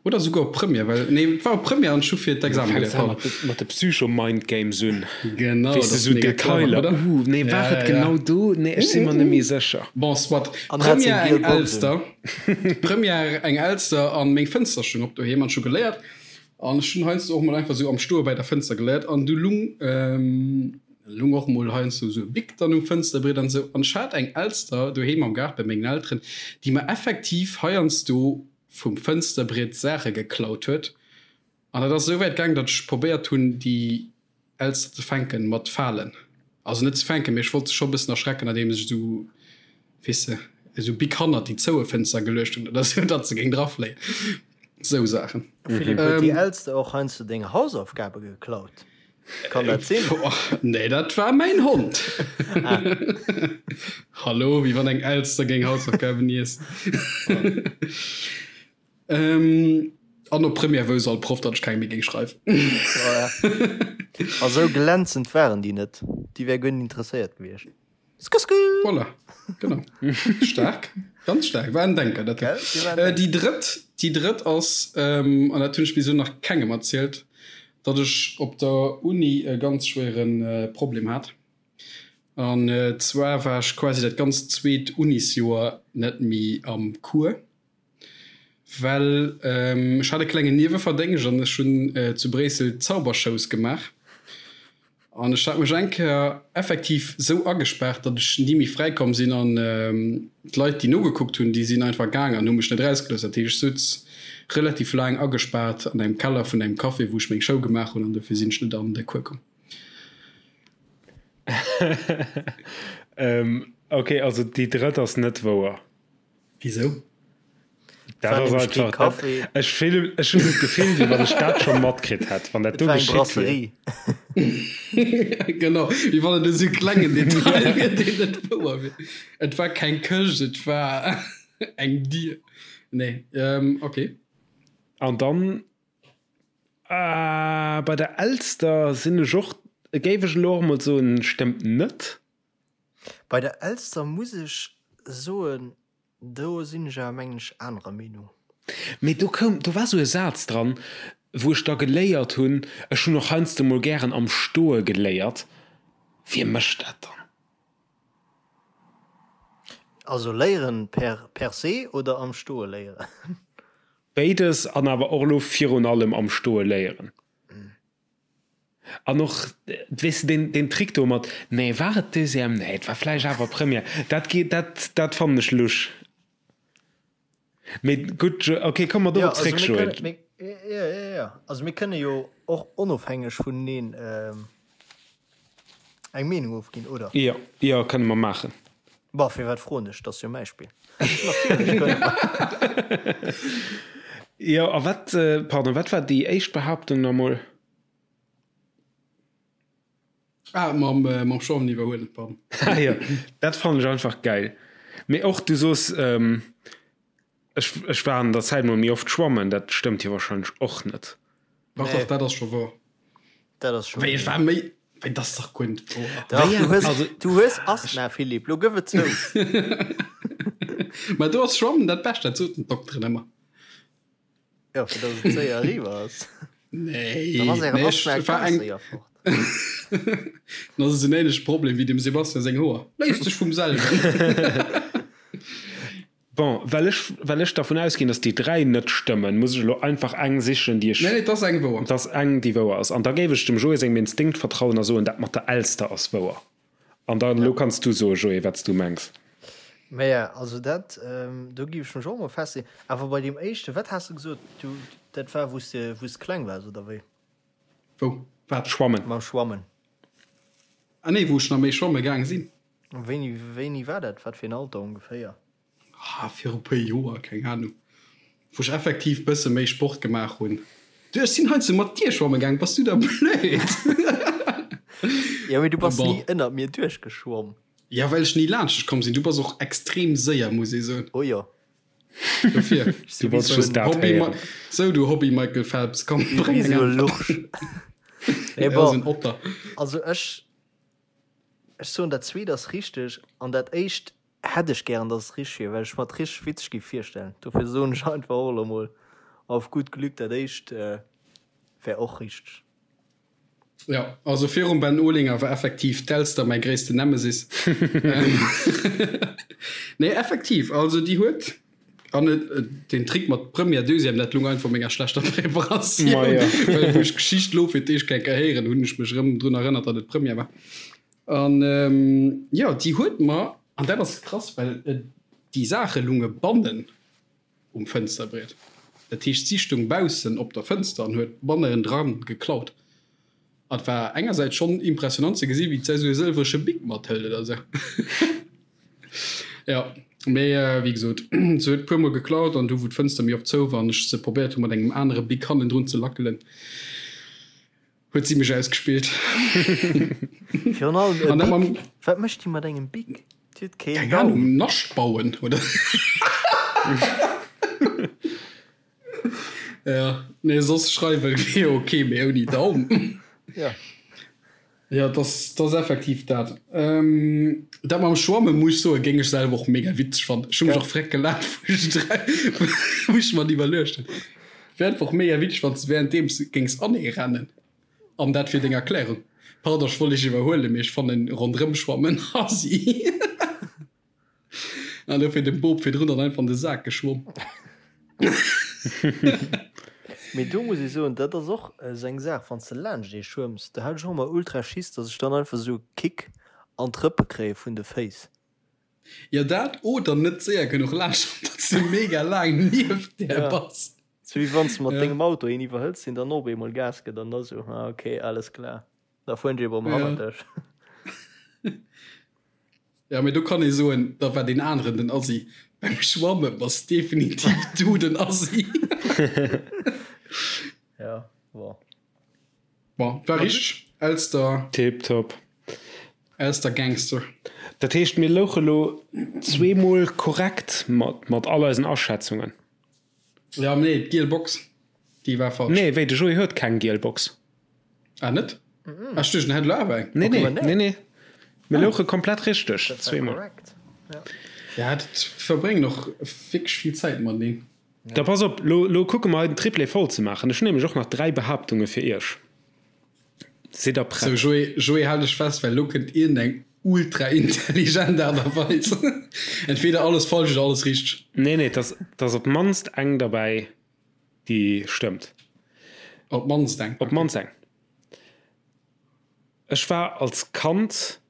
Oder souguer op Première, well, nee, et war op Première an ech hu fir d'Examen geléiert, pardon. Mat de Psycho-Mindgames un. Genau, Weess de, sou Detailer, oder? Uh, nee, war et genau do? Nee, ech si mer net méi sécher. Bon, soit. Première eng Elster, Première eng Elster an meng Fënster stoung op doheem an ech hu geléiert. An ech hunn heiansdo och mol einfach sou am Stoe bei der Fënster geléiert an du lung, lung och mol heiansdo sou e Bic dann um Fënsterbriet an sou. An ech hat eng Elster doheem am Gaart bei mengen Elteren, déi mer effektiv heiansdo vum Fënsterbriet Saache geklaut huet. An dat ass esou wäit gaang, datt ech probéiert hunn, déi Elster ze fänken mat Falen. Also net ze fänken, mee ech wollt se scho e bëssen erschrecken, andeems ech esou, weess de, esou Bic hannert déi zoue Fënster geluecht hunn oder esou, datt se géing drafléien. Esou Saachen. Philippe, huet déi Elster och heiansdo deng Hausaufgabe geklaut? Kann dat sinn? Nee, dat war mäin Hond. Ah. Hallo, wéi wann eng Elster géing Hausaufgaben iessen. Ähm, an op Première wousst all Proff, datt ech keng méi géing schreiwen. A sou glänzend waren déi net. Déi wär guer net interesséiert gewiescht. Skusku! Voilà, genau. Stark, ganz stark. War en Denker, dat. Gell? Déi war en Denker. Déi drëtt, déi drëtt ass, ähm, an dat hunn ech bis elo nach kengem erzielt, datt ech op der Uni e ganz schwéiere Problem hat. An zwar war ech quasi dat ganzt zweet Unisjoer net méi am Cours, well ech hat e klengen Nieweverdéngscht an ech hunn zu Bréissel Zaubershows gemaach. An ech hat mech eng Kéier effektiv sou agespaart, datt ech ni méi fräi komm sinn an d'Leit, déi nogekuckt hunn, déi sinn einfach gaang an hu mech net erausgelooss. Dat heescht, ech souz relativ laang agespaart an engem Keller vun engem Café, wou ech meng Show gemaach hunn an dofir sinn ech net an de Cours komm. Ok, also déi drëtt ass net wouer. Wisou? Dat ass einfach, dat, ech fillen, ech hunn esou d'Gefill, wéi wann ech dat scho matkritt hätt, wann dat do geschitt wier. Genau, wéi wann et esou e klengen Detail wier, deen net wouer wier. Et war keng Këscht, et war eng Dier. Nee, okay. An dann, ah, bei der Elster sinn ech och, géif ech elo och emol soen, stëmmt net. Bei der Elster muss ech soen, do sinn ech awer mengen ech anerer Meenung. Mee do koum, do war sou e Saz dran. Wou ech da geléiert hunn, ech hunn och heiansdo mol gären am Stoe geléiert, wie mécht dat dann? Also léieren per per se oder am Stoe léieren? Béides, an awer och elo virun allem am Stoe léieren. An och, weess de, deen, deen Trick do mat, nee, war et Deuxième? Nee, et war vläicht awer Première. Dat geet, dat, dat fannen ech lusch. Mee gutt, okay, komme mer dorop zréck, Joé. Jo, jo, jo. Also mir kënne jo och onofhängeg vuneneen eng Meenung ofginn, oder? Jo, jo, kënne mer maachen. Bon, firwat froen ech? Dat ass jo mäi Spill. Natierlech kënne mer. Jo, a wat, pardon, wat war déi éischt Behaaptung nach emol? Ah, mam, äh, mam Schwammen iwwerhuelen, pardon. Ah, jo, dat fannen ech einfach geil. Mee och du soos, ähm, ech, ech war an der Zäit mol méi oft schwammen, dat stëmmt jo wahrscheinlech och net. Dach, Nee. dach, dat ass scho wouer. Dat ass scho Wéi, ech wouer. war méi, wéi, dat ass dach guer net wouer. Dach, Wéi du eng, hues, also. du hues Asthma, Philippe, lo gëff et zou. Mä do ass Schwammen dat Bescht, dat soten d'Dokteren ëmmer. Jo, fir dass et séier eriwwer ass. Nee, Dann ass ären nee, Asthma ech war ganz eng. séier fort. Dann ass et en ähnleche Problem wéi dem Sebastian seng Hoer. Léist sech vum selwen. Bon, well ech, well ech dervun ausginn, dass déi 3 net stëmmen, muss ech elo einfach eng sichen, déi ech. Nee, nee, et ass eng wouer. Et ass eng, déi wouer ass. An da géif ech dem Joé sengem Instinkt vertrauen a soen, dat mat der Elster ass wouer. An dann, elo kanns du soen, Joé, wat s du mengs. Maja, also dat, do géif ech mech och emol festleeën. Awer bei deem éischten, wat has de gesot, du, dat war wou s de, wou s de kleng waars, oder wéi? Wou? Wat? Schwammen. Mam Schwammen. Ah nee, wou ech nach méi schwamme gaang sinn. Wéini, wéini war dat? Wat fir en Alter ongeféier? Ah, viru puer Joer, keng Ahnung, wou ech effektiv bësse méi Sport gemaach hunn. Du, ech sinn heiansdo mat dir schwamme gaang, bass du da blöd? Jo, mee du bass Bon. ni ënnert mir duerchgeschwomm. Ja, well ech ni laanscht dech komm sinn. Du bass och extrem séier, muss ee soen. Oh jo. Dofir. Ech si Du wéi wollts sou just en, dat Hobby, héieren. sou du Hobby Michael Phelps, komm, bréng wéi eng sou e Äntwert. Lurch. Mee Ja, bon, sou en Otter. also ech, ech soen, dat zweet ass richteg an dat éischt Hätt ech gären dass et richteg wier, well ech mer et richteg witzeg géif virstellen. Dofir soen ech einfach och elo mol auf gut Glück, dat éischt wär och richteg. Jo, also virum Ben Olinger war effektiv d'Elster mäi gréissten Nemesis. Nee, effektiv, also déi huet, an den Trick mat Première, Deuxième, dat lung einfach u menger schlechter Preparatioun, well wou ech d'Geschicht elo fir d'éischt eng Kéier héieren hunn, ech mech erëm drun erënnert, datt et Première war. An jo, déi huet mer, an dat ass krass, well déi Saache lunge bannen um Fënsterbriet. Dat heescht, si stung baussen op der Fënster an huet banneren dran geklaut. An et war engersäits schonn impressionant ze gesi wéi d'sei sou e sëlwrege Bic mathëlt oder sou. Jo, mee wéi gesot, se huet puer mol geklaut an du wou d'Fënster méi oft zou war an ech se probéiert hu mat engem anere Bic hannendrun ze lackelen, Huet si mech ausgespillt. Virun allem e An dat Bic. mam. Wat mécht déi mat engem Bic? Déi huet keen Keng Daum. Ahnung, Nascht bauen, oder? Ja, nee, soss schreiwe wier ok, mee ouni Daum. Ja. Ja, dat ass, dat ass effektiv dat. Dat mam Schwamme muss ech soen, géing ech selwer och mega witzeg fannen. Ech hu mech Gell? och freck gelaacht, wou ech dra, wou ech mer dat iwwerluecht hunn. Wär einfach mega witzeg, wann s de währenddeems géings aneerennen. An dat fir deng Erklärung. Pardon, ech wollt dech iwwerhuelen, mee ech fannen ronderëmschwammen assi. An dofir dem Bob virdrun dann einfach an de Sak geschwomm. Mee do muss ech soen, dat ass och esou eng Saach, wann s de laanscht ee schwëmms, do hat ech och ëmmer ultra Schiss, dass ech dann einfach esou e Kick an d'Rëppe kréie vun de Féiss. Jo dat, oder net séier genuch laanscht, datt s de mega laang nieft där Ja, bass. sou wéi wann s de mat Ja. dengem Auto een iwwerhëls, deen dann op eemol Gas gëtt an da sou, ah ok, alles klar, da fueren ech eeben Ja. hannert dech. Ja, mee do kann ee soen, da war deen aneren den Assi. Beim Schwamme bass definitiv du den Assi. Ja, bon. Bon, war richteg. Elster. Tiptop. Elster Gangster. Dat heescht, mir louche lo zweemol korrekt mat, mat all eisen Aschätzungen. Ja, nee, d'giel Box, déi war falsch. Nee, wéi, de Joé huet keng giel Box. Ah, net? Ah, ech duecht, en hätt elo awer eng. Nee, nee, nee, nee. Mir louche komplett richteg, Dat war zweemol. korrekt. Ja. Ja, dat verbréngen och wierklech vill Zäit mateneen. Da pass op, lo, lo kucke mer hei den Triplé voll ze maachen. Ech hunn nämlech och nach 3 Behaaptunge fir iech. Sidd der prett? Sou, Joé, Joé, hal dech fest, well lo kënnt iergendeng ultra intelligent Aart a Weis. Entweder alles falsch oder alles richteg. Nee, nee, 't ass, 't ass op d'mannst eng derbäi, déi stëmmt. Op d'mannst eng, Op d'mannst eng. Ech war als Kand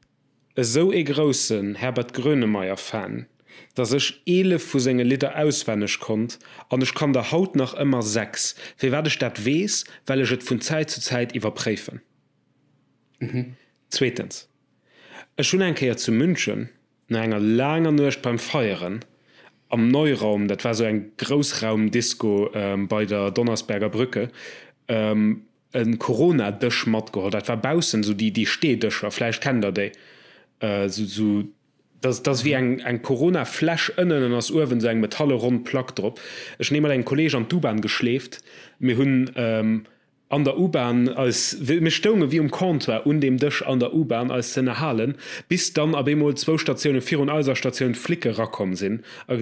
esou ee groussen Herbert Grönemeyer Fan, dass ech 11 vu senge Lidder auswenneg konnt an ech kann der haut nach ëmmer 6. Firwat ech dat weess? Well ech et vun Zäit zu Zäit iwwerpréifen. Zweetens, ech hunn eng Kéier zu München no enger laanger Nuecht beim Feieren am Neuraum, dat war sou eng Groussraumdisco bei der Donnersberger Brücke, e Corona-Dësch matgeholl. Dat war baussen, esou déi, déi Steedëscher, vläicht kennt der déi. Esou, esou, dat, dat ass wéi eng, eng Corona-Fläsch ënnen an ass uewen esou eng metalle ronn Plack drop. Ech hunn ee mat engem Kolleeg an d'U-Bahn geschleeft. Mir hunn an der U-Bahn eis, mir stounge wéi um Comptoir un deem Dësch an der U-Bahn eis ze ënnerhalen, bis dann op eemol zwou Statioune virun eiser Statioun d'Flicke rakomm sinn a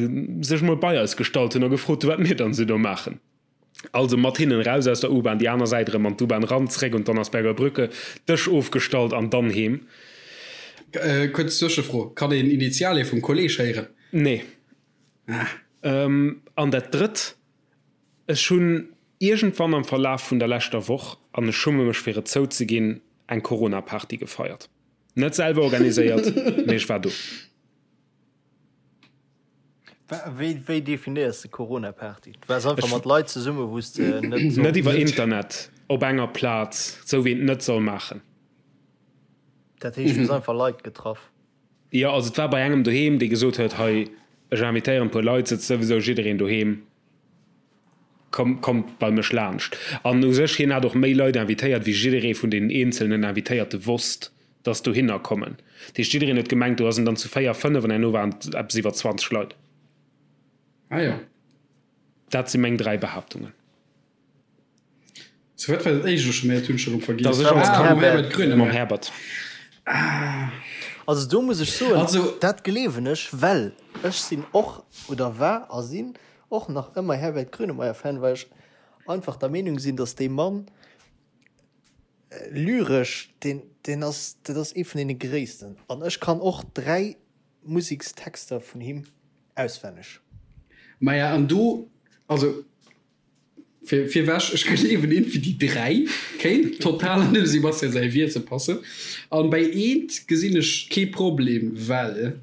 sech mol bei eis gestallt hunn a gefrot hunn, wat mir dann esou do maachen. Also mat hinnen raus aus der U-Bahn, déi aner Säit erëm an d'U-Bahn ran, zréck un d'Donnersberger Brücke, Dësch ofgestallt an dann heem. Kuerz Zwëschefro, Kann een Initialie vum Kolleg héieren? Nee. An dat drëtt, Ech hunn iergendwann am Verlaf vun der leschter Woch, an ech schumme mech fir et zouzeginn, eng Corona-Party gefeiert. Net selwer organiséiert, mee ech war do. Wéi, wéi definéiers de Corona-Party? Du waars einfach mat Leit zesumme wou s de net solls. Net iwwer Internet, op enger Plaz, sou wéi een et net soll maachen. Dat heescht, du hues einfach Leit getraff? Jo, also et war bei engem doheem, dee gesot huet, hei, ech invitéieren e puer Leit, sëtzt souwisou jiddereen doheem, komm, kommt bei mech laanscht. An u sech, hien hat och méi Leit invitéiert, wéi jidderee vun deenen eenzelnen Invitéierte wosst. dass dohinner kommen. Dat heescht, jiddereen huet gemengt, do ass en dann zu 4, 5 an herno waren et eppes iwwer 20 Leit. Ah jo. Dat si meng 3 Behaaptungen. Sou, wat war dat éischt elo scho méi? Dat hunn ech erëm vergiess. Dass ech als Ah, mam Herbert Grönemeyer. Mam Herbert. Also do muss ech soen, Also. dat gleewen ech, well ech sinn och, oder war a sinn och nach ëmmer Herbert Grönemeyer-Fan, well ech einfach der Meenung sinn, dass dee Mann Lyresch, deen, deen ass, dat ass ee vun deene gréissten. An ech kann och 3 Musekstexter vun him auswenneg. Maja, an do, also fir, virwech, ech gleewen iergendwéi déi 3 kéint total an dem Sebastian säi Wiese passen. An bei eent gesinn ech kee Problem, well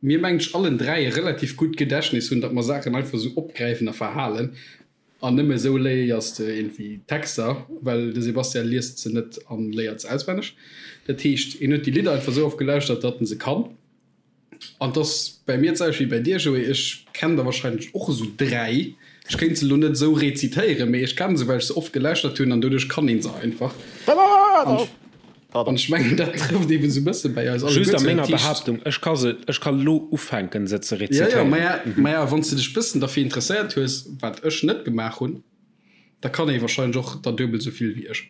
mir, mengen ech, allen 3 e relativ gutt Gedächtnis hunn, datt mer Saachen einfach esou opgräifen a verhalen. An nëmme esou léiers de iergendwéi Texter, well de Sebastian liest se net an léiert se auswenneg. Dat heescht, hien huet déi Lidder einfach esou oft gelauschtert, datt en se kann. An 't ass bäi mir d'selwecht wéi bäi dir, Joé, ech kennen der wahrscheinlech och esou 3. Ech kéint se elo net esou rezitéieren, mee ech kenne se, well ech se oft gelauschtert hunn an doduerch kann een se einfach. An An ech mengen, dat trëfft eben esou e bësse bäi eis alleguer Just a menger Behaaptung, ech ka se, ech ka lo ufänken se ze rezitéieren. Jo, jo, maja, wann s de dech bëssen derfir interesséiert hues, wat ech net gemaach hunn, da kann ee wahrscheinlech och der duebel esou vill wéi ech.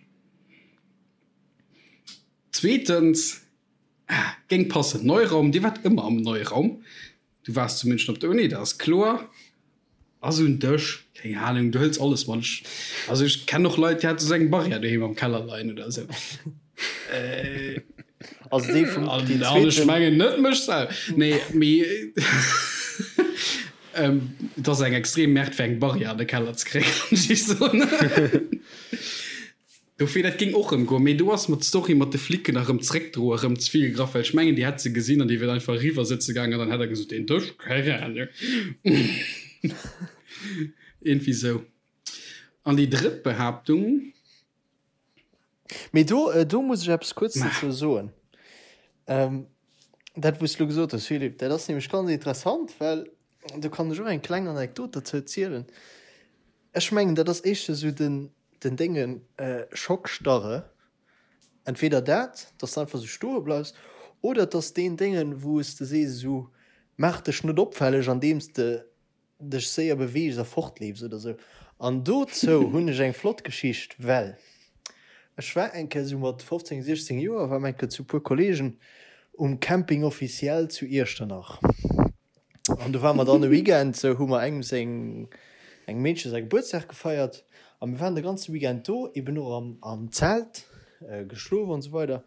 Zweetens, ah, géing passen, Neuraum, Dir waart ëmmer am Neuraum. Du waars zu München op der Uni, dat ass kloer. Ass un Dësch, keng Ahnung, du hëls alles mat. Ech, also ech kennen och Leit, déi hate sou eng Barrière doheem am Keller leien oder esou. Äh, Also déi vum, an, déi an ech mengen net mech selwer. Nee, mee ähm, et ass eng extrem Merde fir eng Barrière an de Keller ze kréien, kann ech iech soen. Dofir, dat géing och erëm goen, mee do ass mer d'Story mat de Flicken erëm zréckdroe erëm ze vill gegraff, well ech mengen, déi hätt se gesinn an déi wier einfach eriwwer sëtze gaangen an dann hätt der gesot, deen Dësch, keng Ahnung. Iergendwéi sou. An déi drëtt Behaaptung. Mee do, do muss ech eppes kuerz dozou soen. Dat, wou s de elo gesot hues, Philippe, dat ass nämlech ganz interessant, well do kann ech och eng kleng Anekdot dozou zielen. Ech mengen, dat ass éischter sou den, den Déngen, Schockstarre. Entweder dat, dass de einfach sou stoe bleifs, oder et ass deen Déngen, wou s de sees esou, maach dech net opfälleg, andeems de dech séier beweegs a fortleefs oder sou. An dozou hunn ech eng flott Geschicht, well ech war eng Kéier sou mat 15, 16 Joer, war mer eng Kéier zu puer Kollegen um Camping Officiel zu Iechternach. An do ware mer dann e Weekend, sou hu mer engem seng. Engem Meedche säi Gebuertsdag gefeiert a mir waren de ganze Weekend do, eben och am am Zelt geschlof an esou weider.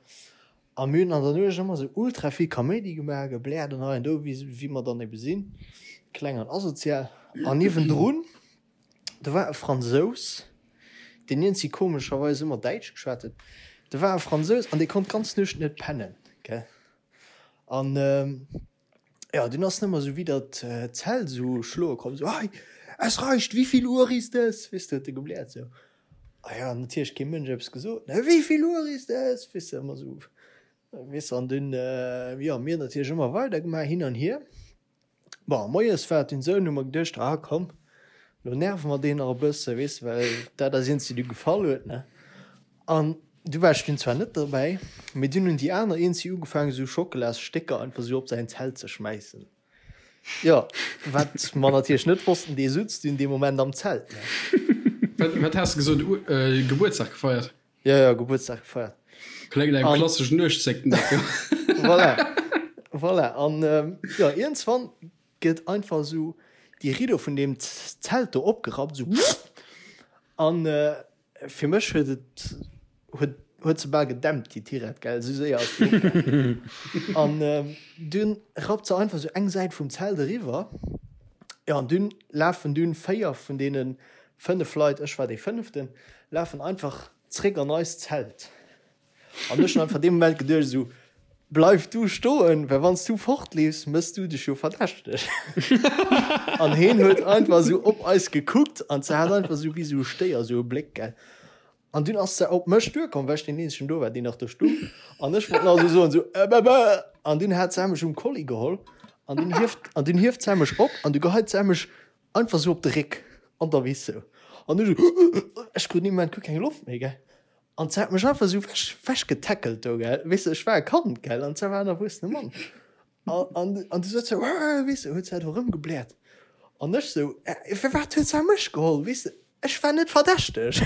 A mir hunn an der Nuecht ëmmer esou ultra vill Kaméidi gemaach, gebläert an hei an do, wéi wéi mer dann ebe sinn, kleng an asozial. An niewendrun, do war e Fransous, deen iergendwéi komescherweis ëmmer Däitsch geschwat huet. Do war e Fransous an dee konnt d'ganz Nuecht net pennen, gell. An Jo, dunn ass en ëmmer esou widder d'Zelt esou schloe komm, esou, Hey, es reicht, wie viel Uhr ist es? Weess de, huet e gebläert esou. A jo, natierlech kee Mënsch eppes gesot, ne, Wie viel Uhr ist es? Weess de, ëmmer esou, weess de. An dunn, jo, mir natierlech ëmmer weider gemaach, hin an hier. Bon, moies war et dunn esou, hunn hu mer geduecht, ah komm, lo nerve mer deen nach e bësse, weess de, well dat ass eent, du gefall huet, ne. An du war ech dunn zwar net derbäi, mee dunn hunn déi aner eenzi ugefaangen esou Schockelasstécker einfach esou op säin Zelt ze schmäissen. Jo, wat mer natierlech net wossten, dee sutz dunn dee Moment am Zelt, ne. Wat, wat has de gesot? Gebuertsdag gefeiert? Jo, jo, Gebuertsdag gefeiert. Kléngt no engem klasseschen Nuechtszécken, dat jo. Voilà, voilà. An jo, iergendswann gëtt einfach esou déi Riddo vun deem Zelt do opgerappt, esou wupp, an Fir mech huet et huet huet se bal gedämpt déi Tirette gell, esou séier ass déi opgaangen. An dunn rappt se einfach esou eng Säit vum Zelt eriwwer. Jo an dunn lafen dunn 4 vun deene 5 Leit, ech war dee fënneften, lafen einfach zréck an eist Zelt. An ech hunn einfach dee Moment geduecht esou, Bleif du stoen, well wann s du fortleefs, mëss du dech jo verdächteg. An heen huet einfach esou op eis gekuckt an se hat einfach esou wéi esou e Stéier esou e Bléck, gell. An dunn ass se op mech duerkomm, well ech deen eenzegen do war, deen nach do stung. An ech wollt nach esou soen, esou, Äh, bä, bä. An dunn hat se mech um Kolli geholl an dunn hieft, an dunn hieft se mech op an du geheit se mech einfach esou op de Réck an der Wiss esou. An ech esou, ech krut dee Moment guer keng Loft méi, gell. An se hat mech einfach esou wech, wechgetackelt do, gell. Weess de, ech war e Kand, gell, an se war en erwuessene Mann. An, an, an du sot se, Wah, weess de, huet se do erëmgebläert. An ech sou, Äh, firwat huet se mech geholl, weess de, ech war net verdächteg.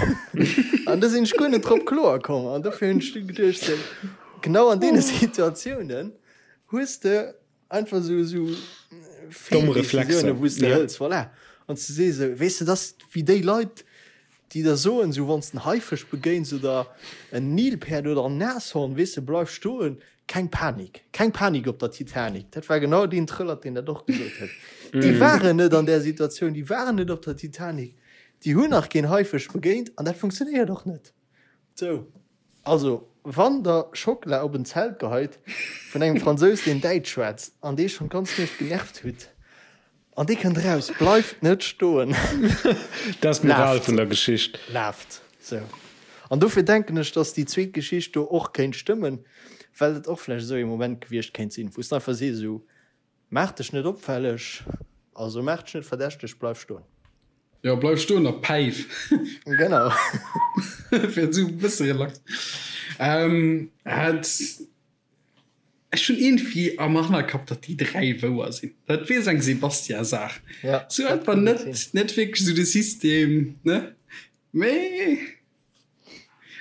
An do sinn ech guer net drop kloer komm. An dofir hunn ech du geduecht, sou, genau an deene Situatiounen hues de einfach sou, sou Domm Reflexer, Feeldecisiounen, wou s de ja. hëls, voilà. An s de sees esou, weess de, dass wéi déi Leit, déi der soen, esou wann s de en Haifësch begéins oder en Nilpäerd oder en Nashorn, weess de, bleif stoen, keng Panik, keng Panik op der Titanic. Dat war genau deen Trëllert, deen dat och gesot huet. Déi waren net an där Situatioun, déi waren net op der Titanic, déi hunn nach keen Haifësch begéint an dat funktionéiert och net. Sou, also wann der Schockela op en Zelt geheit vun engem Fransous, deen Däitsch schwätzt an dee schonn d'ganz Nuecht genervt hutt, An dee kënnt eraus, bleift net stoen. Dat ass d'Moral vun der Geschicht. Laaft. Sou. An dofir denken ech, dass déi zweet Geschicht do och kéint stëmmen, well et och vläicht esou ee Moment gewiescht kéint sinn, wou s de einfach sees, esou, maach dech net opfälleg, also maach dech net verdächteg, bleif stoen. Jo, bleif stoen a päif. Genau. Fir esou e bësse relax. Et. Ech hunn iergendwéi am Hannerkapp, datt déi 3 wouer sinn. Dat wier esou eng Sebastian-Saach. Ja, Sou einfach net, net wierklech esou de System, ne? Mee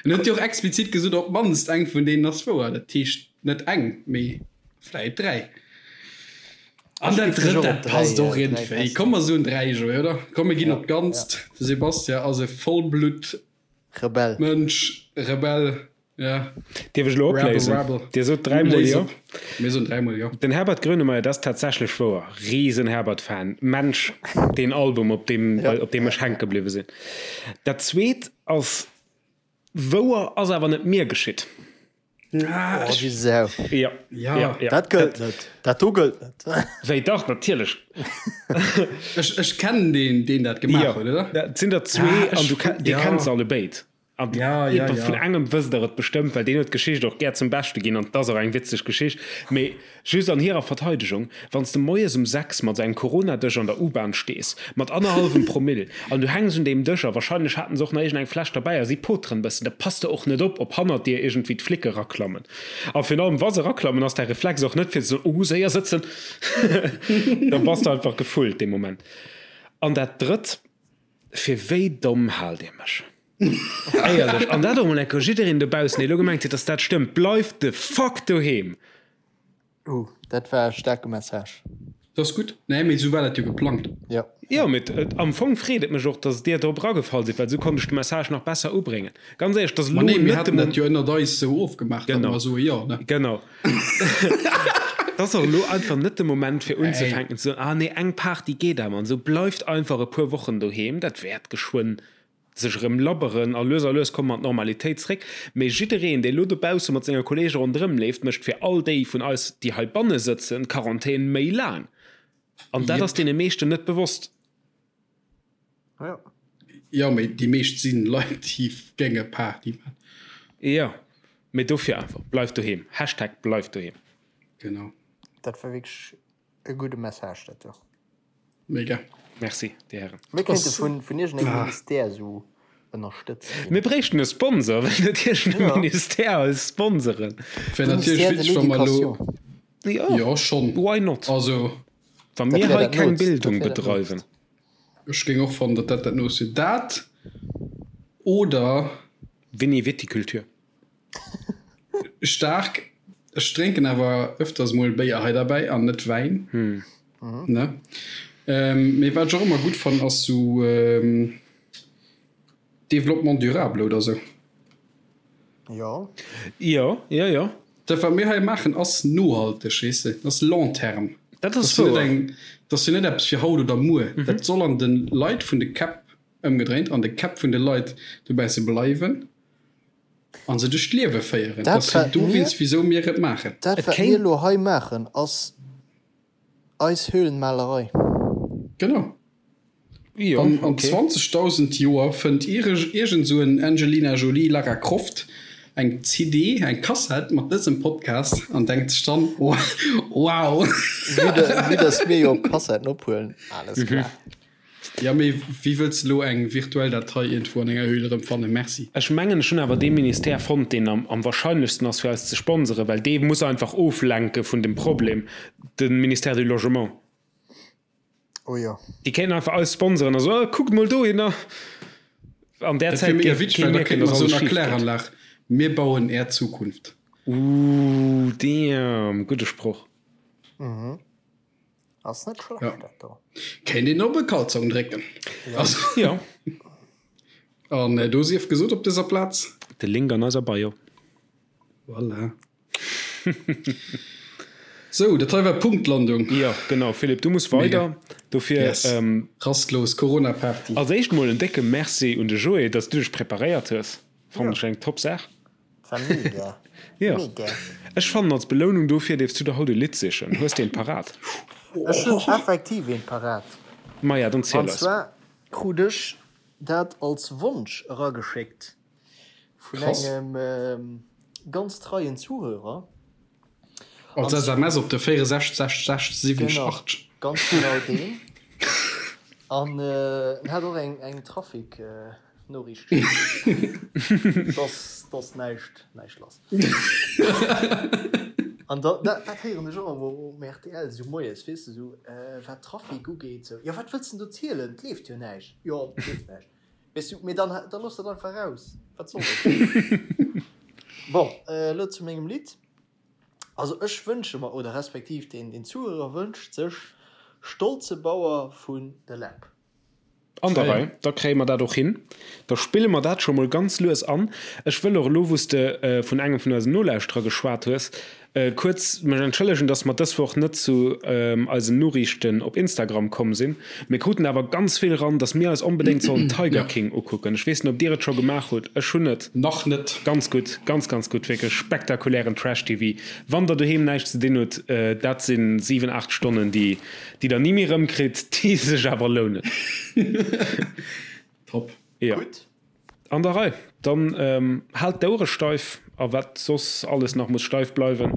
en huet jo och explizit gesot, op d'mannst eng vun deenen ass wouer. Dat heescht net eng, mee vläit 3. An dat drëtt, dat passt och iergendwéi. Komm mer soen 3, Joé, oder? Komm mir ginn op d'Ganzt. De Sebastian ass e Vollblutt. Rebell. Mënsch, Rebell, ja. Dierf ech elo opléisen? Rebel, Rebel. Dir sot dräimol jo. Mir soen dräimol jo. Den Herbert Grönemeyer, dat ass tatsächlech wouer. Riesen Herbert-Fan. Mensch, deen Album, op deem, op deem ech hänke bliwwe sinn. Dat zweet ass wouer, ass awer net mir geschitt. Ah, oh, Sau. Ja. Ja. Ja, ja. Dat gëllt net. Dat do gëllt net. Wéi dach, natierlech. Ech, ech kennen deen, deen dat gemaach ja. huet, oder? Dat sinn der zwee ah, an du, dir ja. kennt se alle béid. An ja, ja, ja. vun engem wësst der et bestëmmt, well deen huet d'Geschicht och gär zum Beschte ginn an 't ass och eng witzeg Geschicht. Mee Just an hirer Verteidegung, Wann s de moies um 6 mat engem Corona-Dësch an der U-Bahn stees, mat annerhallwem Promill, an du hänks un deem Dësch a wahrscheinlech haten se och nach iergendeng Fläsch derbäi a si poteren bëssen, da pass de och net op, ob hannert dir iergendwéi d'Flicke raklammen. A virun allem, wa se raklammen, ass däi Reflex och net fir ze soen, Oh, séier sëtzen! Da bass de einfach gefullt dee Moment. An dat Drëtt, Fir wéi domm haalt Dir mech? Éierlech, an dat och mol eng Kéier jiddereen dobaussen, dee elo gemengt huet, dass dat stëmmt, Bleift the fuck doheem! Uh, dat war e staarke Message. Dat ass gutt. Nee, mee esou war dat jo geplangt. Jo. Jo, mee am Fong freet et mech och, dass Dir drop eragefall sidd, well esou konnt ech de Message nach besser ubréngen. Ganz éierlech, dass elo net de Moment. Ma nee, mir haten dat jo ënnert eis esou ofgemaach, datt mer soe jo, ne? Genau. Et ass och elo einfach net de Moment, fir unzefänken ze soen, ah nee, eng Party geet awer an esou. Bleift einfach e puer Wochen doheem, dat wäert geschwënn sech erëm labberen a lues a lues komme mer an d'Normalitéit zréck. Mee jiddereen, dee elo dobausse mat senge Kolleege ronderëm leeft, mécht fir all déi vun eis, déi heibanne sëtzen, d'Quarantän méi laang. An dat ass deene meeschten net bewosst. Jo. Jo, mee déi meescht si Leit, déi géinge Party man. Jo, mee dofir einfach, bleift doheem. Hashtag bleift doheem. Genau. Dat war wierklech e gudde Message, dat do. Mega. Merci, Dir Hären. Mir kéinte vun, vun iergendengem Ministère esou ënnerstëtzt ginn. Mir bréichten e Sponsor, wéll net iergendee ja. Ministère eis sponsoren. Wär natierlech witzeg, wa mer elo. Jo, jo schonn. Why not? Also. Wa mir hei keng Bildung bedreiwen. Ech géing och fannen, datt dat dat Noost wier. Dat oder. Vini Viticulture. Staark. Ech drénken awer öfters mol Béier hei derbäi an net Wäin. Ne? Mee wat ech och ëmmer gutt fannen ass sou Développement durable oder sou. Jo. Jo, jo, jo. Dat wat mir hei maachen ass nohalteg, weess de, dat ass long terme. Dat ass wouer. Dat ass jo net eppes fir haut oder muer. Dat soll an de Leit vun de Käpp ëmgedréint, an de Käpp vun de Leit dobäi ze bleiwen. An se duerch d'Liewe féieren. Dat ass jo dowéinst, wisou mir et maachen. Dat, wat mir elo hei maachen, ass eis Höhlenmalerei. Genau. An an 20.000 Joer fënnt iergend esou en Angelina Jolie, Lara Croft eng CD, eng Kassett mat dësem Podcast an denkt sech dann, Wow! Vue dass mir jo op Kassetten ophuelen, alles klar. Ja, mee wéi wëlls de elo eng virtuell Datei iergendwou an enger Höhl erëm fannen? Merci. Ech mengen, ech hunn awer dee Ministère fonnt, deen am wahrscheinlechsten ass, fir eis ze sponseren, well dee muss einfach oflenke vun dem Problem, de Ministère du Logement. Oh jo. Déi kéinten einfach eis sponseren a soen, oh, kuckt mol dohinner. An där Zäit géif kee mierken, dass alles schif geet. Mir bauen är Zukunft. Ooh, damn, gudde Sproch. Ass net schlecht ja. dat do. Kéint een op e Kalzong drécken. Ja. Also, ja. An äh, do sief gesot op dëser Plaz. De Link an eiser Bio. Voilà. Sou, dat hei war Punktlandung. Ja, genau. Philippe, du muss weider. Dofir yes. ähm, Rastlos Corona-Party. Als éischt mol en décke Merci un de Joé, dass du dech preparéiert hues. Fannen ech eng top Saach. War mega. Ja. Mega. Ech fannen als Belounung dofir dierfs du der haut e Lidd sichen. Hues de eent parat? Ech hunn effektiv eent parat. Maja, dann ziel An eis. zwar krut ech dat als Wonsch erageschéckt vun Krass. engem ganz treien Zuhörer. Als SMS op de 64 60 60 70 80. Genau, ganz genau deen. An en hat och eng eng Trafic Noriicht geschéckt. Dass dass näischt näischt lass. An da dat dat héieren ech och ëmmer um rtl esou moies, weess de, esou wat Trafic ugeet, esou, jo wat wëlls de do zielen, et leeft jo näischt. Jo, et leeft näischt. Weess du, mee dann da looss dat einfach raus. Wat soll dat? Bon, elo zu mengem Lidd. Also ech wënsche mer, oder respektiv deen deen Zuhörer wënscht sech Stolze Bauer vun The Läb. An der Rei, da kréie mer dat och hin. Da spille mer dat scho mol ganz lues an. Ech wëll och elo, wou s de vun engem vun eisen Nolauschterer geschwat hues, kuerz mech entschëllegen, dass mer dës Woch net zu eisen Noriichten op Instagram komm sinn. Mir kruten awer ganz vill ran, dass mir eis onbedéngt sollen Tiger King ukucken. Ech weess net, ob dir et scho gemaach hutt. Ech hunn et. Nach net. Ganz gutt, ganz, ganz gutt, wierklech spektakulären Trash-TV. Wann der doheem näischt ze dinn hutt, dat si 7, 8 Stonnen, déi déi der ni méi rëmkritt, déi sech awer lounen. Top. Jo. Gutt. An der Rei. Dann haalt d'Ouere steif a wat soss alles nach muss steif bleiwen.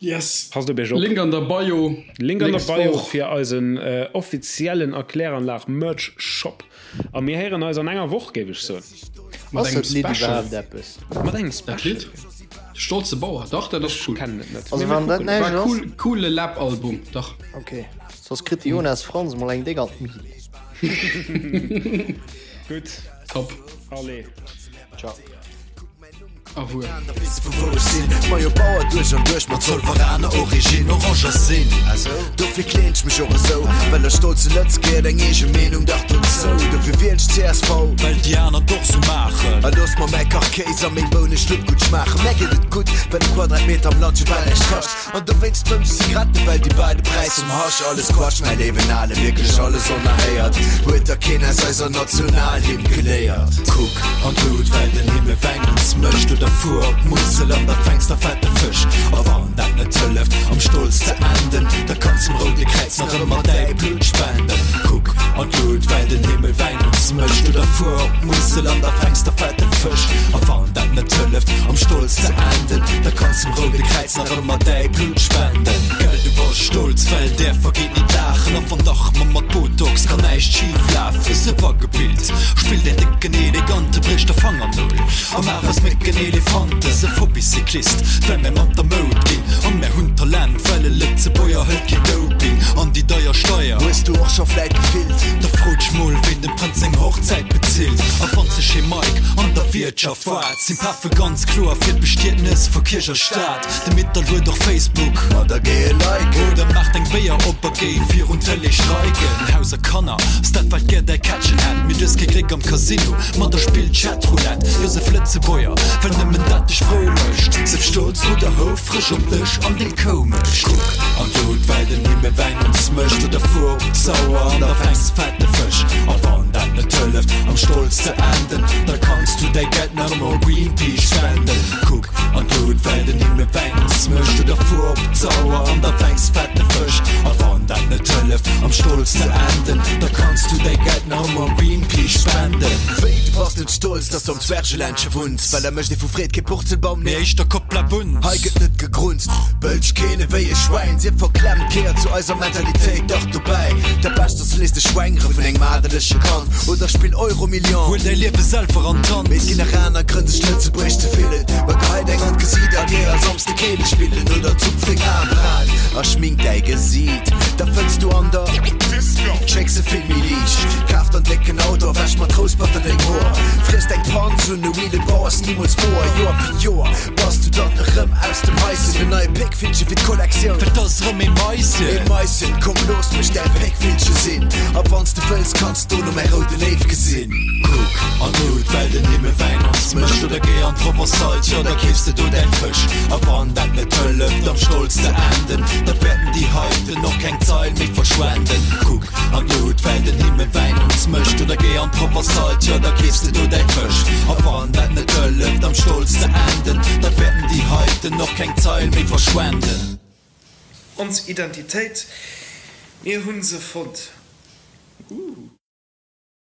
Yes. Passt op iech op. Link an der Bio. Link an der Nächst Bio Woch. fir eisen offiziellen Erkläranlag Merch Shop. A mir héieren eis an enger Woch, géif ech soen. Mat Ass engem dat Lidd Special. iwwerhaapt eppes? Mat engem Dat Special. Lidd? De stolze Bauer, dach, dat ass cool. Kennen et net. Also Mee mir wann dat kucken. näischt War ass. cool, coole Läb-Album, dach. Ok, soss kritt de Jonas Franz mol eng déck an d'Mil. Gutt. Top. Allez. Ciao. Awuer. Majo Bauer duerch an duerch mat Zolveraner Origine Oranger sinn Dofir kleen ech mech och esou Well e stolze Lëtz geet eng eege Meenung dach dozou Dofir wielen ech csv Well déi aner et och sou maachen. A looss mer mäi Kachkéis a meng Bouneschlupp gutt schmaachen Mär geet et gutt, well e Quadratmeter am Land jo bal näischt kascht An dowéinst fëmms Zigaretten, well déi bei de Präis vum Hasch Alles Quatsch, mäi léiwen Ale, wierklech alles onerhéiert Huet da keen aus eiser Nationalhymn geléiert? Kuck an d'Lut, well den Himmel Wäin ons mécht Oder fuer op d'Musel an da fänks der fette Fësch A wann dat net hëlleft, am Stolz ze enden Da kanns dem Roude Kräiz nach ëmmer däi Blut spenden Kuck an d'Lut, well den Himmel Wäin ons mécht Oder fuer op d'Musel an da fänks der fette Fësch A wann dat net hëlleft, am Stolz ze enden Da kanns dem Roude Kräiz nach ëmmer däi Blut spenden. Gell du bass stolz, well där vergeet ni d'Laachen a wann dach ma mat Botox kann näischt schif lafen. Sief agebilt, spill däin décken elegante bréch der Fangernol a maach aus Mécken Elefante. Sief Hobbycyclist, well mär mat der Moud ginn a mär hunn Talent, well e Lëtzebuerger hëlt keen Doping an déi deier Steier. Hues du och scho vläit gefillt? Da fro dech mol, ween dem Prënz seng Hochzäit bezilt a wann sech ee Mike an der Wiertschaft waart, sinn Pafe ganz kloer fir d'Bestietnes vu Kierch a Staat. De Mittal huet och Facebook. Ma da géi e liken. Oder maach deng Béier op a géi virun d'Tëlee streiken. Haus a Kanner, ass dat wat gär däi Kättchen hätt. Mee du hues kee Gléck am Casino, ma da spill Chatroulette. Jo sef Lëtzebuerger, well nëmmen dat dech frou mécht. Sef stolz oder houfreg op dech an deng Koumecht. Kuck an d'Lut, well den Himmel Wäin ons mécht. Oder fuer op d'Sauer an da fänks fette Fësch. A wann dat net hëlleft, am Stolz ze enden, da kanns du däi Geld nach ëmmer u Greenpeace spenden. Kuck an d'Lut, well den Himmel Wäin ons mécht. Oder fuer op d'Sauer an da fänks fette Fësch. A wann dat net hëlleft, am Stolz ze enden, da kanns du däi Geld nach ëmmer u Greenpeace spenden. Wéi, du bass net stolz, dass du am Zwergeländche wunns? Well da mécht ee vu Freed kee Purzelbaum, mee éischter Kopplabunz. Hei gëtt net gegrunzt, bëlch keen ewéi e Schwäin. Sief verklemmt, gehéiert zu eiser Mentalitéit dach dobäi. Dat Bescht ass, du léiss dech schwängere vun engem adelege Kand oder spill Euromillion. Huel däi Liewe selwer an d'Hand. Mee et ginn nach aner Grënn, sech lëtzebuergesch ze fillen. Ma gehei deng an d'Gesiit a géi all Samsde Keele spillen oder zupf deng Aembraen a schmink däi Gesiit. Da fënns du an der Disco Schécks e vill méi liicht. Kaf der en décken Auto a wäsch mat Rousperter deng Hoer. Friess deng Panz un e Wheelebau ass nimools woer. Joer fir Joer bass du dann erëm aus dem Haischen. En neie Péckvillche fir d'Kollektioun. Well 't ass erëm ee Maischen. Ee Maischen, komm looss mech däi Péckvillche sinn. A wanns de wëlls, kanns dono mäi roude Léiw gesinn. Kuck an d'Lut, well den Himmel Wäin ons mécht. Oder géi an d'Provençale, tjo da keefs de do däi Fësch. A wann dat net hëlleft am Stolz ze enden, da wäerten déi heiten och keng Zeil méi verschwenden. Kuck an d'Lut, well den Himmel Wäin ons mécht. Oder géi an d'Provençale, tjo da keefs de do däi Fësch. A wann dat net hëlleft am Stolz ze enden, da wäerten déi heiten och keng Zeil méi verschwenden. Ons Identitéit, mir hunn se fonnt. Ooh.